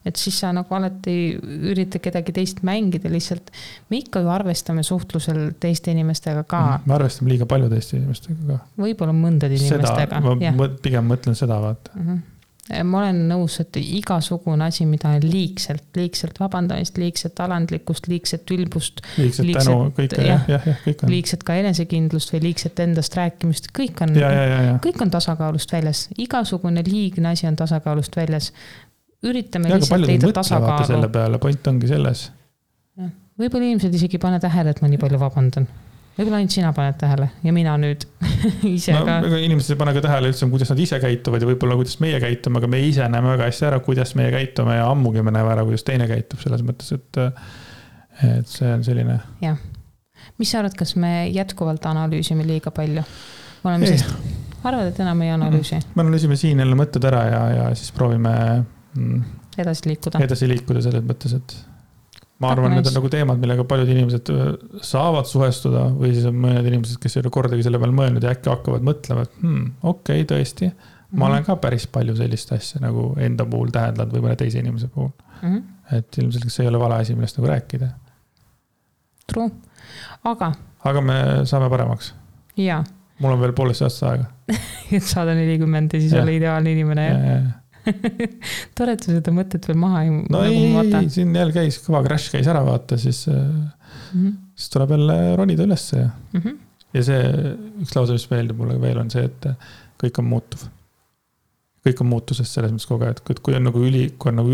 Et siis sa nagu alati üritad kedagi teist mängida lihtsalt. Me ikka ju arvestame suhtlusel teiste inimestega ka. Me arvestame liiga palju teiste inimestega ka. Võib-olla mõndade inimestega. Ma pigem mõtlen seda, vaata. Ma olen nõus, et igasugune asi, mida on liigselt vabandamist, liigselt alandlikkust, liigselt ülbust, liigselt ka enesekindlust või liigselt endast rääkimist, kõik on tasakaalust väljas. Igasugune liigne asi on tasakaalust väljas. Üritame lihtsalt leida tasakaalu. Selle peale, point ongi selles. Võib-olla inimesed isegi pane tähele, et ma nii palju vabandan. Võib-olla ainult sina paned tähele ja mina nüüd ise ka. Inimesed ei pane ka tähele üldse, kuidas nad ise käituvad ja võib-olla kuidas meie käitume, aga me ise näeme väga hästi ära, kuidas meie käitume ja ammugi me näeme ära, kuidas teine käitub selles mõttes, et see on selline. Jah. Mis sa arvad, kas me jätkuvalt analüüsime liiga palju? Arvad, et enam ei analüüsi? Me analüüsime siin jälle mõtted ära ja siis proovime edasi liikuda selles mõttes, et ma arvan, need on nagu teemad, millega paljud inimesed saavad suhestuda või siis on mõned inimesed, kes ei ole kordagi selle peal mõelnud ja äkki hakkavad mõtlema, et okei, tõesti, ma olen ka päris palju sellist asja nagu enda puhul tähendanud või mõne teise inimese puhul. Et ilmselt see ei ole vale asi, millest nagu rääkida. True. Aga me saame paremaks. Jaa. Mul on veel poolest aasta aega. Et saada 40 ja siis ole ideaalne inimene. Tore, et seda mõtet veel maha ei, siin jälle käis, kõva crash käis ära vaata, siis tuleb jälle ronida ülesse ja see üks lause, mis meeldib mulle veel on see, et kõik on muutuv. Kõik on muutusest selles mõttes kogu aeg, et kui on nagu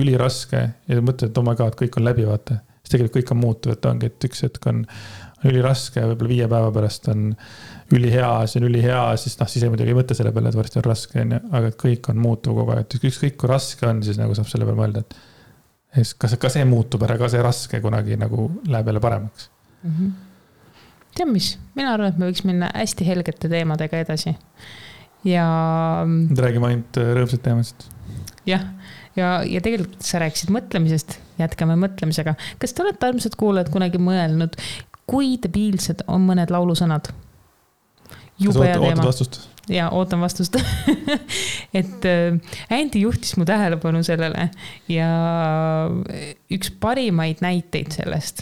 üliraske ja mõtled, et oh my god, kõik on läbi vaata, siis tegelikult kõik on muutuv, et ongi, et üks hetk on üliraske, võib-olla 5 päeva pärast on ülihea, see on ülihea, siis ei muidugi ei mõtle selle peale, et varsti on raske, aga kõik on muutuv kogu aeg, et ükskõik kui raske on, siis nagu saab selle peale mõelda, et kas see muutub ära, ka see raske kunagi nagu läheb jälle paremaks. Tead mis, mina arvan, et me võiks minna hästi helgete teemadega edasi ja räägime ainult rõõmsad teemasid. Jah, ja tegelikult sa rääkisid mõtlemisest, jätkame mõtlemisega. Kas te olete armsad kuulajad kunagi mõelnud, kui debiilsed on mõned laulusõnad? Ootad vastust? Jaa, ootan vastust. Et Andy juhtis mu tähelepanu sellele ja üks parimaid näiteid sellest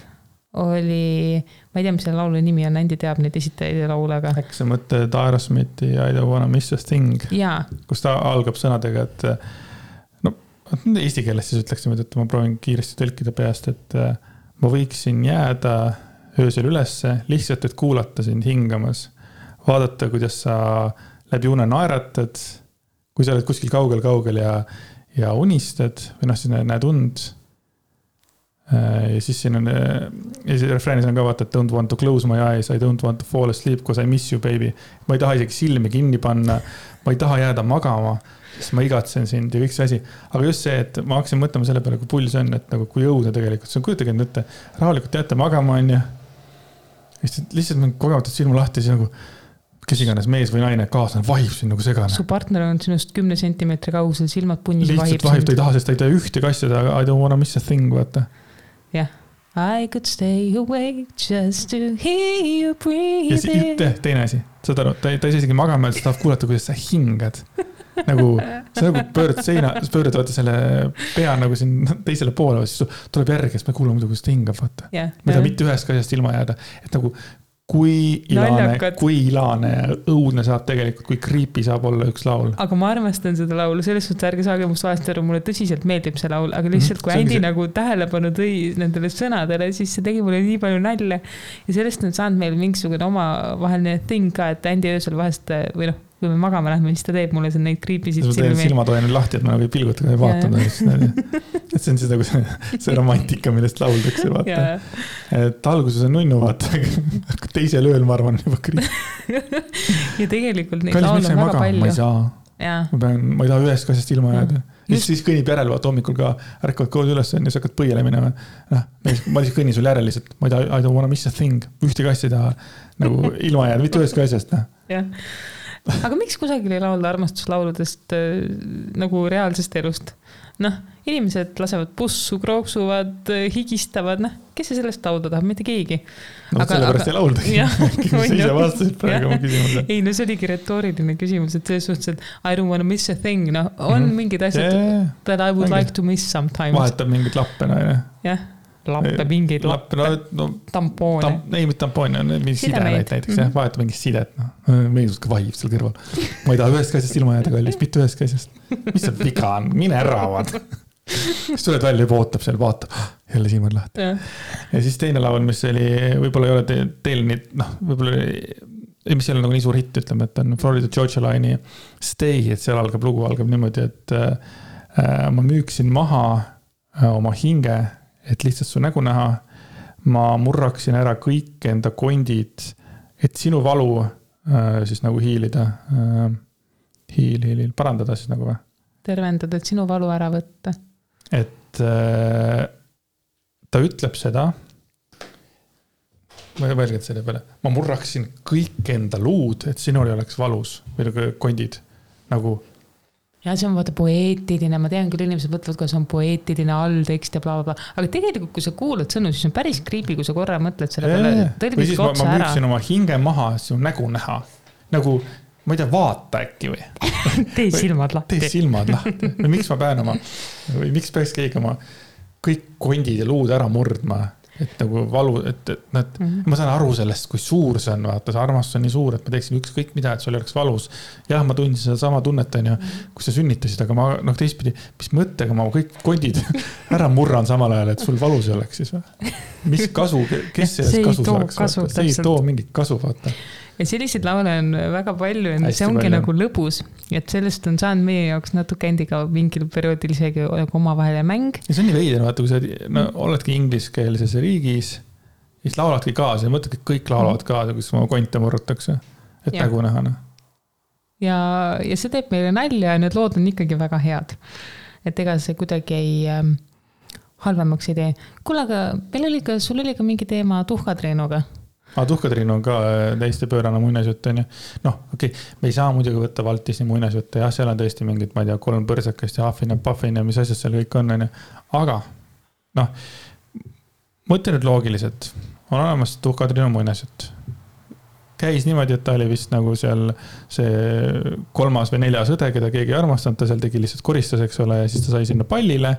oli, ma ei tea, mis selle laulu nimi on, Andy teab neid esitajaid ja laulaga. Äkki sa mõtled Aerosmithi I don't wanna miss a thing, kus ta algab sõnadega, et eesti keeles siis ütleksime, et ma proovin kiiresti tõlkida peast, et ma võiksin jääda öösel ülesse, lihtsalt, et kuulata sind hingamas. Vaadata, kuidas sa läbi une naeratad, kui sa oled kuskil kaugel ja unistad, või siis näed und. Ja siis siin on, ja siis refräänis on ka vaata, et don't want to close my eyes, I don't want to fall asleep, cause I miss you, baby. Ma ei taha isegi silmi kinni panna, ma ei taha jääda magama, sest ma igatsen sind ja kõik see asi. Aga just see, et ma hakkasin mõtlema selle peale, kui pull see on, et nagu kui õudne tegelikult. See on kujutage ette, rahulikult jääte magama on ja lihtsalt mingi kogemata silma lahti, siis nagu kes iganes mees või naine kaaslane vahib siin nagu segane. Su partner on sinust 10 sentimeetri kaugusel, silmad punnis lihtsalt vahib, ta ei taha, sest ta ei tea ühte asjada, I don't wanna miss a thing, vaata. Jah. I could stay awake just to hear you breathe. Ja teine asi, saad aru, ta ei saa isegi magama, et sa tahab kuulata, kuidas sa hingad. Nagu, sa nagu pöörad vaata selle pea nagu siin teisele poole, siis tuleb järgi, siis me kuulame muidu, kuidas ta hingab, vaata. Ma ei taha mitte ühest asjast ilma jääda, et nagu kui ilane ja õudne saab tegelikult, kui creepy saab olla üks laul. Aga ma armastan seda laulu, selles suhtes ärge saage must vahest aru, mulle tõsiselt meeldib see laul, aga lihtsalt kui Andy nagu tähelepanu tõi nendele sõnadele, siis see tegi mulle nii palju nalja. Ja sellest on saanud meil mingisugune oma vaheline thing ka, et Andy öösel vahest, või noh, kui me magama lähme, siis ta teeb mulle see neid kriipisid silmi. Ma teen silmatoeni lahti, et ma nagu ei pilguta, ei vaatanud. Et see on seda, kui see romantika, millest lauldakse, vaata. Et alguses on nunnu, vaata. Teisel ööl, ma arvan, juba kriip. Ja tegelikult neid laul on väga palju. Ma ei saa. Ma ei taha ühest asjast ilma jääda. Siis kõnnib järel, vaata hommikul ka ärkavad koos üles ja sa hakkad põiele minema. Ma lihtsalt kõnnin sul järel lihtsalt. Ma ei taha, I don't wanna miss a thing. Ühtegi asja ei taha nagu ilma jääda, mitte ühest asjast. Jah. Aga miks kusagil ei laulda armastuslauludest nagu reaalsest elust? Noh, inimesed lasevad bussu, krooksuvad, higistavad, noh, kes see sellest laulda tahab, mitte keegi. No sellepärast ei laulda. Sa ise vastasid praegu oma küsimuse. Ei, no see oligi retooriline küsimus, et selles suhtes, et I don't wanna miss a thing, no, on mingid asjad, that I would like to miss sometimes. Vahetab mingid lappe, no, jah. Lappe, mingeid lappe, tampoone. Ei, mitte tampoone, on mingi sidemeid näiteks, vahetab mingit sidet. Meeldus ka vahib seal kõrval. Ma ei taha ühest asjast ilma jääda kallis, mitte ühest asjast. Mis see viga on? Mine äravad. Siis tuled välja juba ootab seal, vaatab, jälle silmad lahti. Ja siis teine laul, mis oli, võib-olla ei ole teil nii, noh, võib-olla mis ei ole nagu nii suur hitt, ütleme, et on Florida Georgia Line'i Stay, et seal lugu algab niimoodi, et ma müüksin maha oma hinge, et lihtsalt su nägu näha, ma murraksin ära kõik enda kondid, et sinu valu siis nagu hiilida, parandada siis nagu või? Tervendada, et sinu valu ära võtta. Et ta ütleb seda, ma ei mõelnud selle peale, ma murraksin kõik enda luud, et sinul ei oleks valus või nagu kondid, nagu ja see on vaata poeetiline, ma tean küll inimesed võtavad, kui see on poeetiline alltekst ja blablabla, aga tegelikult kui sa kuulad sõnu, siis on päris creepy, kui sa korra mõtled selle peale. Või siis ma müüksin oma hinge maha, sinu nägu näha. Nagu, ma ei tea, vaata äkki või? Tee silmad lahti. Tee silmad lahti. Või miks ma pean oma, või miks peaks keegi oma kõik kondid ja luud ära murdma? Et nagu valu, et ma saan aru sellest, kui suur see on, vaata, see armastus on nii suur, et ma teeksin ükskõik mida, et sul ei oleks valus. Jah, ma tundsin seda sama tunnet, kui sa sünnitasid, aga ma, noh, teistpidi, mis mõttega ma kõik kondid ära murran samal ajal, et sul valus ei oleks siis või? Mis kasu, kes sellest kasu saaks? See ei too mingit kasu, vaata. Ja selliseid laule on väga palju, see ongi nagu lõbus, et sellest on saanud meie jaoks natuke endiga mingil perioodil isegi oma vahele mäng. Ja see on nii veider, vaata, kui sa oledki ingliskeelses riigis, siis lauladki kaasa ja mõtledki, et kõik laulavad kaasa, kus oma konte murrutakse, et nägu näha. Ja see teeb meile nalja ja need lood on ikkagi väga head. Et ega see kuidagi ei halvemaks ei tee. Kuule, aga sul oli ka mingi teema Tuhkatriinuga. Tuhkatriin on ka täiesti pöörane muinasjutt, on ju. Noh, okei, me ei saa muidugi võtta Valtisni muinasjutte. Jah, seal on tõesti mingid, ma ei tea, 3 põrsakast ja Huffin ja Puffin ja mis asjad seal kõik on. Aga, noh, mõtle nüüd loogiliselt. On olemas Tuhkatriinu muinasjutt. Käis niimoodi, et ta oli vist nagu seal see 3. või 4. õde, keda keegi ei armastanud. Ta seal tegi lihtsalt koristas, eks ole, ja siis ta sai sinna pallile.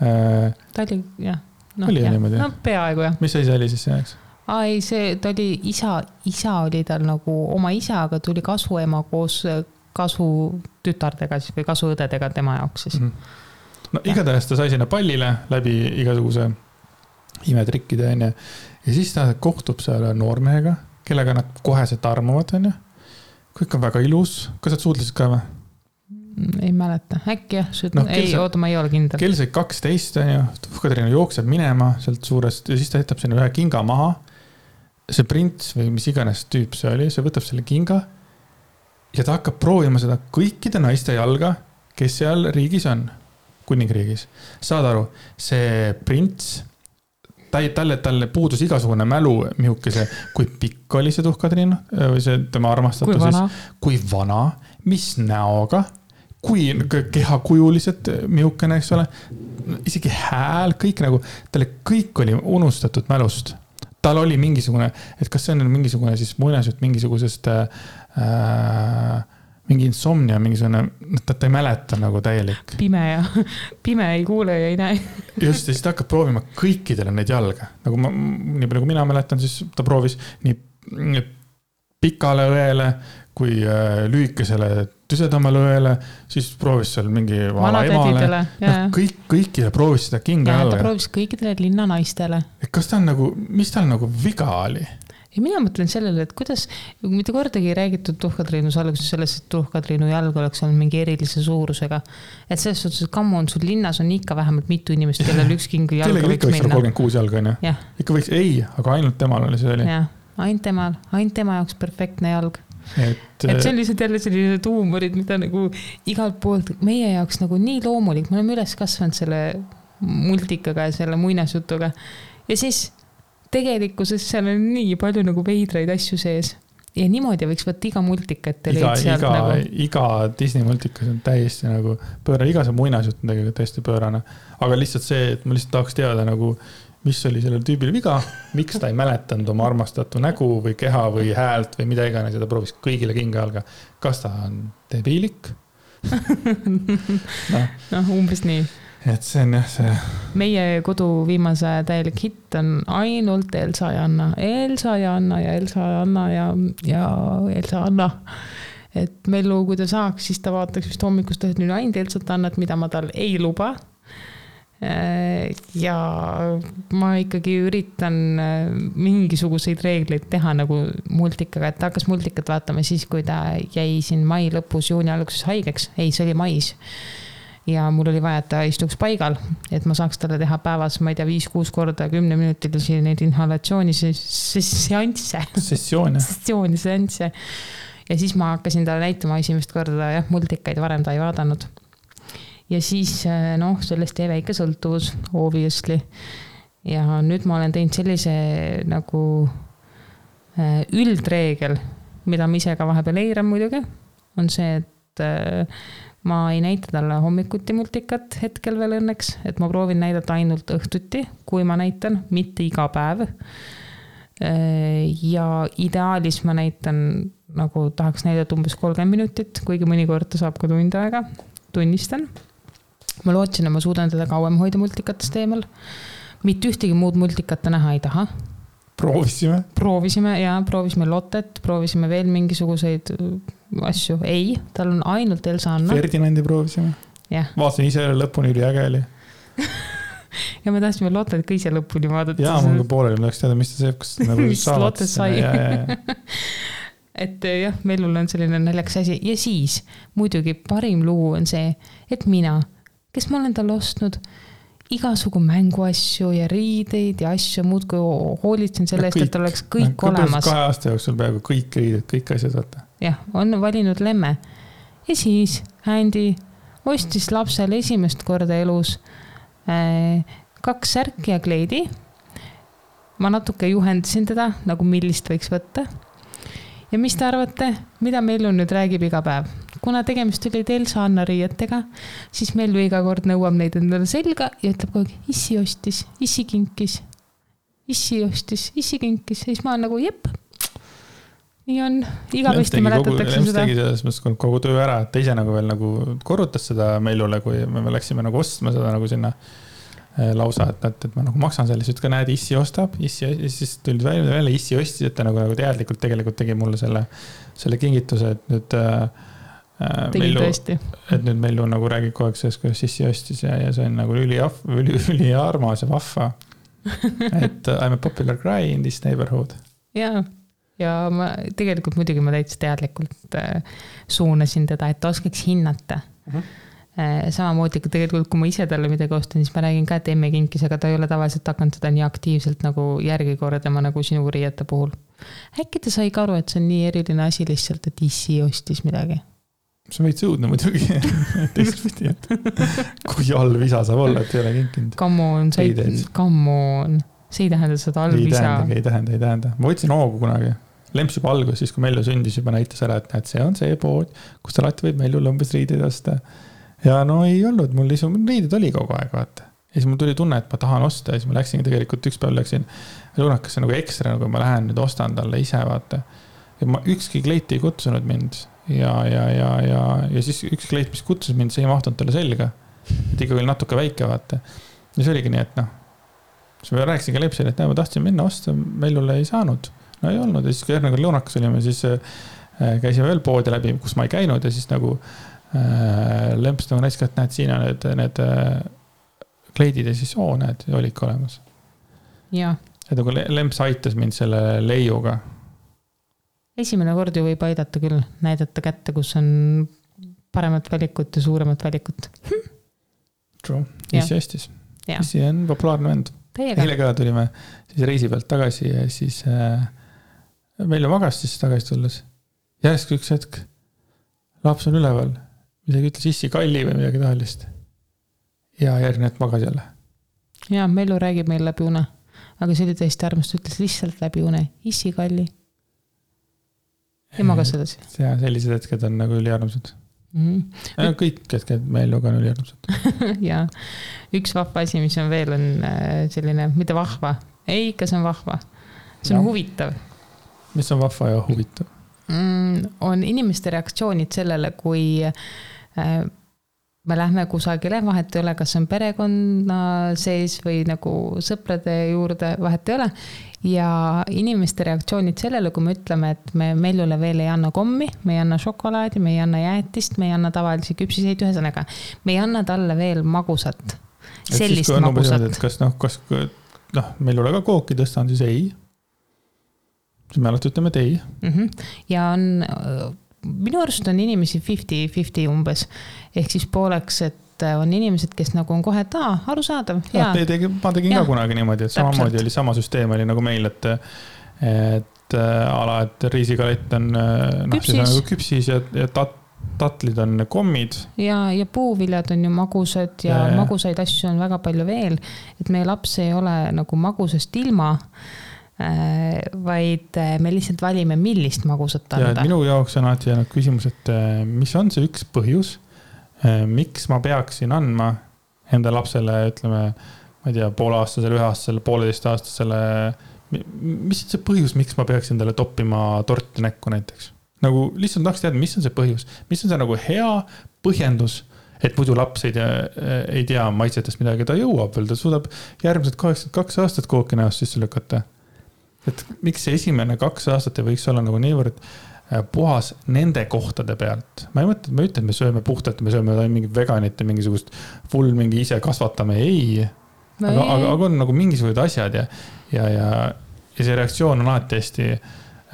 Ta oli, jah. No, peaaegu, jah. Mis asi see oli siis see? Ai, ta oli isa oli tal nagu oma isa, aga tuli kasuema koos kasutütardega siis, või kasuõdedega tema jaoks siis. No igatahes ta sai sinna pallile läbi igasuguse imetrikkide, on ju. Ja siis ta kohtub seal noormehega, kellega nad koheselt armuvad, on ju. Kõik on väga ilus. Kas sa suudlesid ka või? Ei mäleta, äkki jah, oota, ma ei ole kindel. Kell sai 12 on ju, Tuhkatriinu jookseb minema sealt suurest ja siis ta jätab sinna ühe kinga maha. See prints või mis iganes tüüp see oli, see võtab selle kinga ja ta hakkab proovima seda kõikide naiste jalga, kes seal riigis on, kuningriigis. Saad aru, see prints, talle puudus igasugune mälu mihukese, kui pikk oli see Tuhkatriinu või see tema armastatu kui vana, mis näoga, kui kehakujulised mihukene, eks ole, isegi hääl, kõik nagu, talle kõik oli unustatud mälust. Tal oli mingisugune, et kas see on mingisugune siis muinasjutt mingisugusest mingi insomnia, mingisugune, ta ei mäleta nagu täielik. Pime ei kuule ja ei näe. Just, ja siis ta hakkab proovima kõikidele neid jalga. Nagu nii palju kui mina mäletan, siis ta proovis nii pikale õele kui lühikesele tüsedamale õele, siis proovis seal mingi vala emale. Kõikidele proovis seda kinga jalga. Ta proovis kõikidele linna naistele. Kas ta on nagu, mis tal nagu viga oli? Ja mina mõtlen sellele, et kuidas, mitte kordagi ei räägitud Tuhkatriinus alguses sellest, et Tuhkatriinu jalg oleks olnud mingi erilise suurusega. Et selles suhtes, et kammu on sul linnas on ikka vähemalt mitu inimest, kellel üks kingi jalga võiks minna. 36 jalga on ju? Ikka võiks, ei, aga ainult temal oli see oli. Jah, ainult tema jaoks perfektne jalg. Et see on lihtsalt jälle sellised huumorid, mida nagu igalt poolt meie jaoks nagu nii loomulik. Me oleme üles kasvanud selle multikaga ja selle muinasjutuga. Ja siis tegelikkuses seal on nii palju nagu veidraid asju sees. Ja niimoodi võiks võtta iga multika, et iga Disney multikas on täiesti nagu pöörane, iga see muinasjut on tegelikult täiesti pöörane. Aga lihtsalt see, et ma lihtsalt tahaks teada nagu mis oli sellel tüübil viga, miks ta ei mäletanud oma armastatu nägu või keha või häält või mida iganes ja ta proovis kõigile kinga jalga. Kas ta on debiilik? Umbes nii. Et see on jah see. Meie kodu viimase täielik hitt on ainult Elsa ja Anna. Elsa ja Anna ja Elsa ja Anna ja Elsa ja Anna. Et Mellu, kui ta saaks, siis ta vaataks vist hommikust nüüd ainult Elsat Annat, mida ma tal ei luba. Ja ma ikkagi üritan mingisuguseid reegleid teha nagu multikaga, et ta hakkas multikat vaatama siis, kui ta jäi siin mai lõpus, juuni alguses haigeks. Ei, see oli mais. Ja mul oli vaja, et ta istuks paigal, et ma saaks talle teha päevas, ma ei tea, 5-6 korda 10 minutilisi neid inhalatsiooni seansse. Ja siis ma hakkasin talle näitama esimest korda multikaid, varem ta ei vaadanud. Ja siis sellest jäi väike sõltuvus, obviously. Ja nüüd ma olen teinud sellise nagu üldreegel, mida ma ise ka vahepeal eiran muidugi, on see, et ma ei näita talle hommikuti multikat hetkel veel õnneks, et ma proovin näidata ainult õhtuti, kui ma näitan, mitte iga päev. Ja ideaalis ma näitan, nagu tahaks näidata umbes 30 minutit, kuigi mõnikord ta saab ka tund aega, tunnistan. Ma lootsin, et ma suudan teda kauem hoida multikatest eemal. Mitte ühtegi muud multikata näha ei taha. Proovisime Lottet, proovisime veel mingisuguseid asju. Ei, tal on ainult Elsa Anna. Ferdinandi proovisime. Vaatasin ise lõpuni üli äge oli. Ja me tahtsime Lottet ka ise lõpuni vaadata. Jaa, mul ka pooleli, ma tahaks teada, mis ta see, nagu mis Lottet sai. Et jah, Mellul on selline naljaks asi. Ja siis muidugi parim lugu on see, et mina, kes ma olen tal ostnud igasugu mänguasju ja riideid ja asju muud, kui hoolitsen selle eest, et oleks kõik olemas. 2 aasta jooksul peaaegu kõik riided, kõik asjad vaata. Jah, on valinud lemme. Ja siis Andy ostis lapsele esimest korda elus 2 särki ja kleidi. Ma natuke juhendasin teda, nagu millist võiks võtta. Ja mis te arvate, mida Mellu nüüd räägib iga päev? Kuna tegemist oli Elsa Anna riietega, siis Mellu iga kord nõuab neid endale selga ja ütleb kogu aeg, issi ostis, issi kinkis. Issi ostis, issi kinkis. Ja siis ma olen nagu, jep, nii on. Igavesti mäletatakse seda. Lems tegi selles mõttes kogu töö ära, et ta ise nagu veel nagu korrutas seda Mellule, kui me läksime nagu ostma seda nagu sinna lausa, et ma nagu maksan selle, siis ka näed, issi ostab, siis tulid välja, issi ostis, et ta nagu teadlikult tegelikult tegi mulle selle kingituse, et nüüd Mellu nagu räägib kogu aeg sellest, kuidas issi ostis ja see on nagu üli armas ja vahva. Et I'm a popular guy in this neighborhood. Ja ma tegelikult muidugi ma täitsa teadlikult suunasin teda, et ta oskaks hinnata, Samamoodi tegelikult, kui ma ise talle midagi ostan, siis ma räägin ka, et emme kinkis, aga ta ei ole tavaliselt hakanud seda nii aktiivselt nagu järgi kordama nagu sinu riiete puhul. Äkki ta sai ka aru, et see on nii eriline asi lihtsalt, et issi ostis midagi? See on veits õudne muidugi. Teistpidi, et kui halb isa saab olla, et ei ole kinkinud. Come on. See ei tähenda seda halb isa. Ei tähenda. Ma võtsin hoogu kunagi. Lemps juba algus, siis kui Mellu sündis, juba näitas ära, et see on see pood, kus ta alati võib Mellul umbes riideid osta. Ja no ei olnud, mul riided oli kogu aeg, vaata. Ja siis mul tuli tunne, et ma tahan osta ja siis ma läksin tegelikult üks päev läksin Lunakasse nagu ekstra, nagu ma lähen nüüd ostan talle ise, vaata. Ja ma ükski kleit ei kutsunud mind ja siis üks kleit, mis kutsus mind, see ei mahtunud talle selga. Et ikka oli natuke väike, vaata. Ja see oligi nii, et noh, siis ma rääkisin ka Lepsile, et ma tahtsin minna osta, Mellule ei saanud. No ei olnud ja siis kui järgmine Lunakas olime, siis käisime veel poodi läbi, kus ma ei käinud ja siis nagu Lemps nagu näis ka, et näed, siin on need kleidid ja siis näed, oli ikka olemas. Ja. Et nagu Lemps aitas mind selle leiuga. Esimene kord ju võib aidata küll, näidata kätte, kus on paremat valikut ja suuremat valikut. True, issi hästis. Issi on populaarne vend. Eile ka tulime siis reisi pealt tagasi ja siis meil magas siis tagasi tulles. Järsk üks hetk laps on üleval. Midagi ütles issi kalli või midagi tahalist. Ja järgmine hetk magas jälle. Ja, Mellu räägib meil läbi une. Aga see oli tõesti armast, ütles lihtsalt läbi une. Issi kalli. Ja magas edasi. Ja sellised hetked on nagu üliarmsad. Kõik hetked Melluga on üliarmsad. Ja, üks vahva asi, mis on veel, on selline, mitte vahva. Ei, ikka see on vahva. See on huvitav. Mis on vahva ja huvitav? On inimeste reaktsioonid sellele, kui me lähme kusagile, vahet ei ole, kas on perekonna sees või nagu sõprade juurde, vahet ei ole. Ja inimeste reaktsioonid sellele, kui me ütleme, et me Mellule veel ei anna kommi, me ei anna šokolaadi, me ei anna jäätist, me ei anna tavalisi küpsiseid ühesõnaga. Me ei anna talle veel magusat. Sellist siis, magusat. Kas Mellule ka kooki tõstan, siis ei. Siis me alati ütleme ei. Ja on, minu arust on inimesi 50-50 umbes. Ehk siis pooleks, et on inimesed, kes nagu on kohe, et arusaadav. Ma tegin ka kunagi niimoodi, et samamoodi oli sama süsteem oli nagu meil, et ala, et riisikalett on nagu küpsis ja tatlid on kommid. Ja puuviljad on ju magusad ja magusaid asju on väga palju veel, et meie laps ei ole nagu magusast ilma, vaid me lihtsalt valime, millist magusat anda. Ja minu jaoks on alati jäänud küsimus, et mis on see üks põhjus, miks ma peaksin andma enda lapsele, ütleme, ma ei tea, pooleaastasele, 1-aastasele, 1,5-aastasele, mis on see põhjus, miks ma peaksin talle toppima torti näkku näiteks? Nagu lihtsalt tahaks teada, mis on see põhjus, mis on see nagu hea põhjendus, et muidu laps ei tea maitsetest midagi, ta jõuab veel, ta suudab järgmised 82 aastat kooki näost sisse lükata. Et miks see esimene 2 aastat ei võiks olla nagu niivõrd puhas nende kohtade pealt. Ma ei mõtle, et me sööme puhtalt, me sööme mingi veganit ja mingisugust full mingi ise kasvatame, ei. Aga on nagu mingisugused asjad ja see reaktsioon on alati hästi,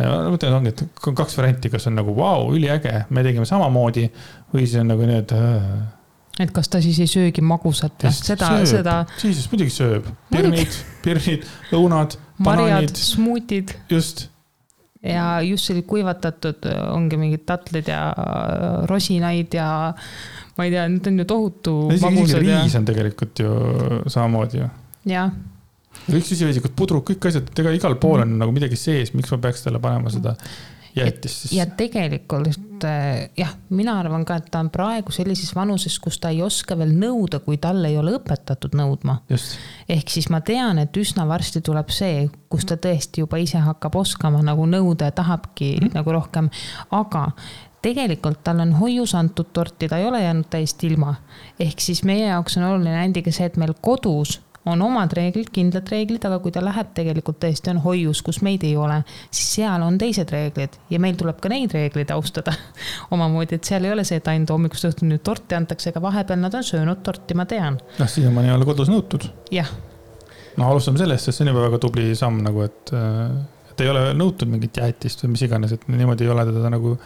ma mõtlen, ongi, et 2 varianti, kas on nagu vau, üliäge, me tegime samamoodi või siis on nagu nii, et kas ta siis ei söögi magusat? Siis muidugi sööb. Pirnid, lõunad, marjad, smuutid. Just. Ja just selline kuivatatud ongi mingid tatlid ja rosinaid ja ma ei tea, need on ju tohutu magusad. Riis on tegelikult ju samamoodi ju. Ja. Kõik süsivesikud, pudrud, kõik asjad, ega igal pool on nagu midagi sees, miks ma peaks talle panema seda jäetist. Ja tegelikult, mina arvan ka, et ta on praegu sellises vanuses, kus ta ei oska veel nõuda, kui talle ei ole õpetatud nõudma. Just. Ehk siis ma tean, et üsna varsti tuleb see, kus ta tõesti juba ise hakkab oskama nagu nõuda ja tahabki nagu rohkem, aga tegelikult tal on hoius antud torti, ta ei ole jäänud täiesti ilma. Ehk siis meie jaoks on oluline endiga see, et meil kodus on omad reeglid, kindlad reeglid, aga kui ta läheb tegelikult tõesti on hoius, kus meid ei ole, siis seal on teised reeglid ja meil tuleb ka neid reeglid austada omamoodi, et seal ei ole see, et ainult hommikust õhtuni torti antakse, aga vahepeal nad on söönud torti, ma tean. Siiamaani ei ole kodus nõutud. Jah. Alustame sellest, sest see on juba väga tubli samm, nagu, et ei ole nõutud mingit jäätist või mis iganes, et niimoodi ei ole teda nagu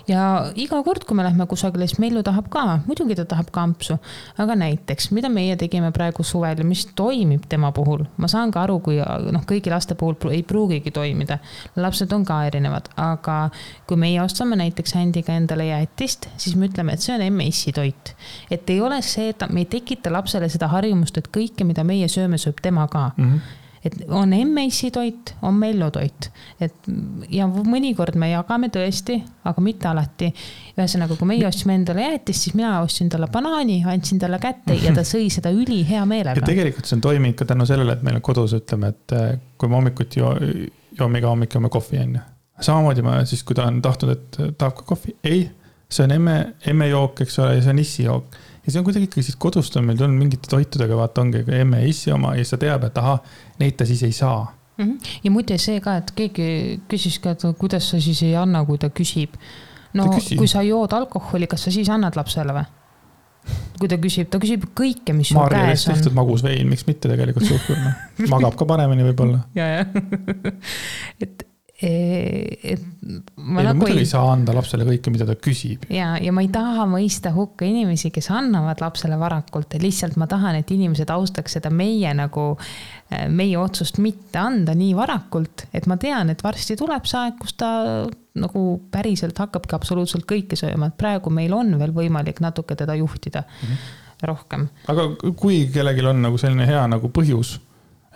ja iga kord, kui me lähme kusagile, siis Mellu tahab ka, muidugi ta tahab kampsu, aga näiteks, mida meie tegime praegu suvel ja mis toimib tema puhul, ma saan ka aru, kui kõigi laste puhul ei pruugigi toimida, lapsed on ka erinevad, aga kui meie ostame näiteks Händiga endale jäätist, siis me ütleme, et see on M-issi toit, et ei ole see, et me ei tekita lapsele seda harjumust, et kõike, mida meie sööme, sööb tema ka. Et on M-issi toit, on Mellu toit, et ja mõnikord me jagame tõesti, aga mitte alati. Ühesõnaga, kui meie ostsime endale jäätist, siis mina ostsin talle banaani, andsin talle kätte ja ta sõi seda üli hea meelega. Ja tegelikult see on toiminud ka tänu sellele, et meil on kodus, ütleme, et kui me hommikuti joome iga hommik joome kohvi enne. Samamoodi ma siis, kui ta on tahtnud, et tahab ka kohvi, ei, see on M-jook, eks ole, ja see on issi jook. Ja see on kuidagi ikkagi siis kodust on meil tulnud mingite toitudega, vaata ongi emme ja issi oma ja sa teab, et aha, neid ta siis ei saa. Ja muide see ka, et keegi küsis ka, et kuidas sa siis ei anna, kui ta küsib. No kui sa jood alkoholi, kas sa siis annad lapsele või? Kui ta küsib kõike, mis sul käes on. tehtud magus vein, miks mitte tegelikult suhkurna. Magab ka paremini võib-olla. Ja. Ma muidugi ei saa anda lapsele kõike, mida ta küsib. Ja ma ei taha mõista hukka inimesi, kes annavad lapsele varakult. Lihtsalt ma tahan, et inimesed austaks seda meie otsust mitte anda nii varakult, et ma tean, et varsti tuleb see aeg, kus ta nagu päriselt hakkabki absoluutselt kõike sööma. Et praegu meil on veel võimalik natuke teda juhtida rohkem. Aga kui kellelgi on nagu selline hea nagu põhjus,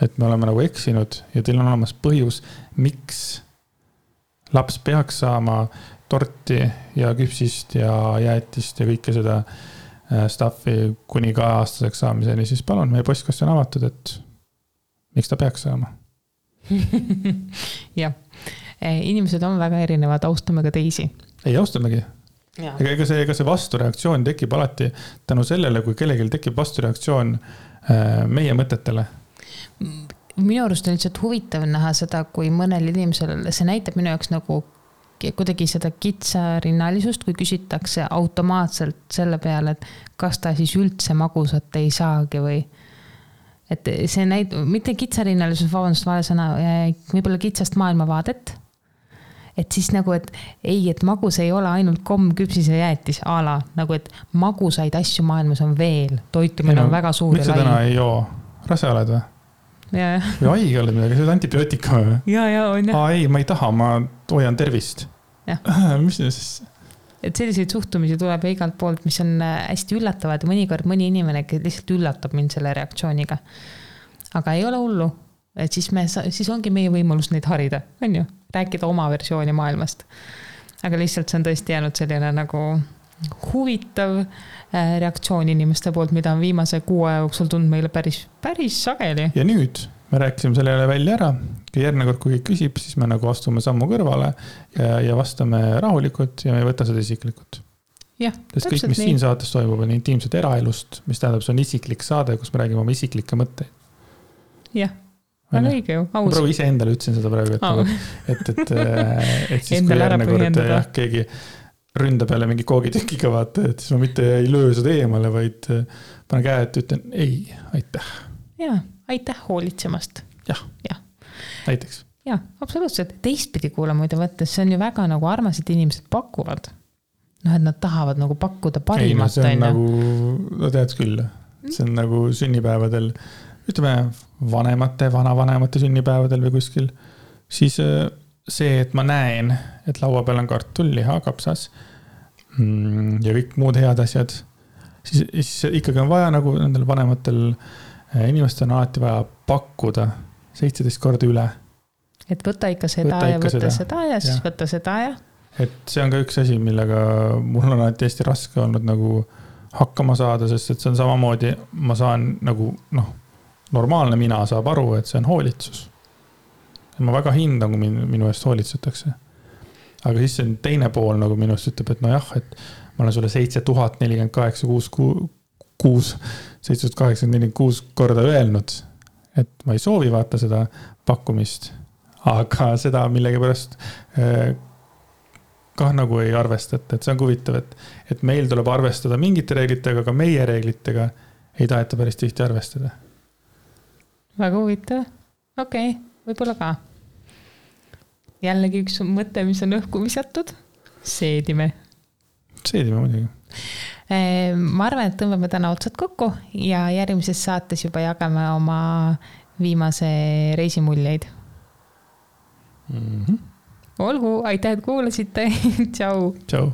et me oleme nagu eksinud ja teil on olemas põhjus, miks laps peaks saama torti ja küpsist ja jäätist ja kõike seda staffi kuni ka aastaseks saamiseni, siis palun, meie postkast on avatud, et miks ta peaks saama? Jah, inimesed on väga erinevad, austame ka teisi. Ei, austamegi. Ega see vastureaktsioon tekib alati tänu sellele, kui kellelgi tekib vastureaktsioon meie mõtetele. Minu arust on lihtsalt huvitav näha seda, kui mõnel inimesel, see näitab minu jaoks nagu kuidagi seda kitsarinnalisust, kui küsitakse automaatselt selle peale, et kas ta siis üldse magusat ei saagi või et see mitte kitsarinnalisus, vabandust, vale sõna, võib-olla kitsast maailmavaadet, et siis nagu, et ei, et magus ei ole ainult komm, küpsis ja jäätis ala, nagu et magusaid asju maailmas on veel, toitumine on väga suur. Miks sa täna ei joo? Rase oled või? Ja. Või haige oled midagi, see on antibiootika või? Ja, on jah. Ei, ma ei taha, ma hoian tervist. Mis see siis? Et selliseid suhtumisi tuleb igalt poolt, mis on hästi üllatavad ja mõnikord mõni inimene lihtsalt üllatab mind selle reaktsiooniga. Aga ei ole hullu, et siis ongi meie võimalus neid harida, on ju? Rääkida oma versiooni maailmast. Aga lihtsalt see on tõesti jäänud selline nagu huvitav reaktsioon inimeste poolt, mida on viimase 6 jooksul tundnud meile päris sageli. Ja nüüd me rääkisime selle jälle välja ära. Järgmine kord, kui küsib, siis me nagu astume sammu kõrvale ja vastame rahulikult ja me ei võta seda isiklikult. Jah, sest kõik, mis siin saates toimub, on intiimset eraelust, mis tähendab, see on isiklik saade, kus me räägime oma isiklikke mõtteid. Jah, väga õige ju. Ma praegu ise endale ütlesin seda praegu, et siis kui järgmine kord keegi ründab jälle mingi koogitükiga vaata, et siis ma mitte ei löö seda eemale, vaid panen käe, et ütlen ei, aitäh. Jaa, aitäh hoolitsemast. Jah. Näiteks. Jaa, absoluutselt. Teistpidi kuule muide võttes, see on ju väga nagu armased inimesed pakuvad. Et nad tahavad nagu pakkuda parimat. Ei, see on nagu, no tead küll, see on nagu sünnipäevadel, ütleme vanavanemate sünnipäevadel või kuskil, siis see, et ma näen, et laua peal on kartul, liha, kapsas ja kõik muud head asjad, siis ikkagi on vaja nagu nendel vanematel inimestel on alati vaja pakkuda 17 korda üle. Et võta ikka seda ja võta seda ja siis võta seda ja. Et see on ka üks asi, millega mul on alati hästi raske olnud nagu hakkama saada, sest et see on samamoodi, ma saan nagu normaalne mina saab aru, et see on hoolitsus. Ma väga hindan, kui minu eest hoolitsetakse. Aga siis see teine pool nagu minust ütleb, et jah, et ma olen sulle 7,846 korda öelnud, et ma ei soovi vaata seda pakkumist, aga seda millegi pärast kah nagu ei arvestata, et see on huvitav, et meil tuleb arvestada mingite reeglitega, aga meie reeglitega ei taheta päris tihti arvestada. Väga huvitav. Okei. Võib-olla ka. Jällegi üks mõte, mis on õhku visatud. seedime muidugi. Ma arvan, et tõmbame täna otsad kokku ja järgmises saates juba jagame oma viimase reisimuljeid. Olgu, aitäh, et kuulasite. Tšau. Tšau.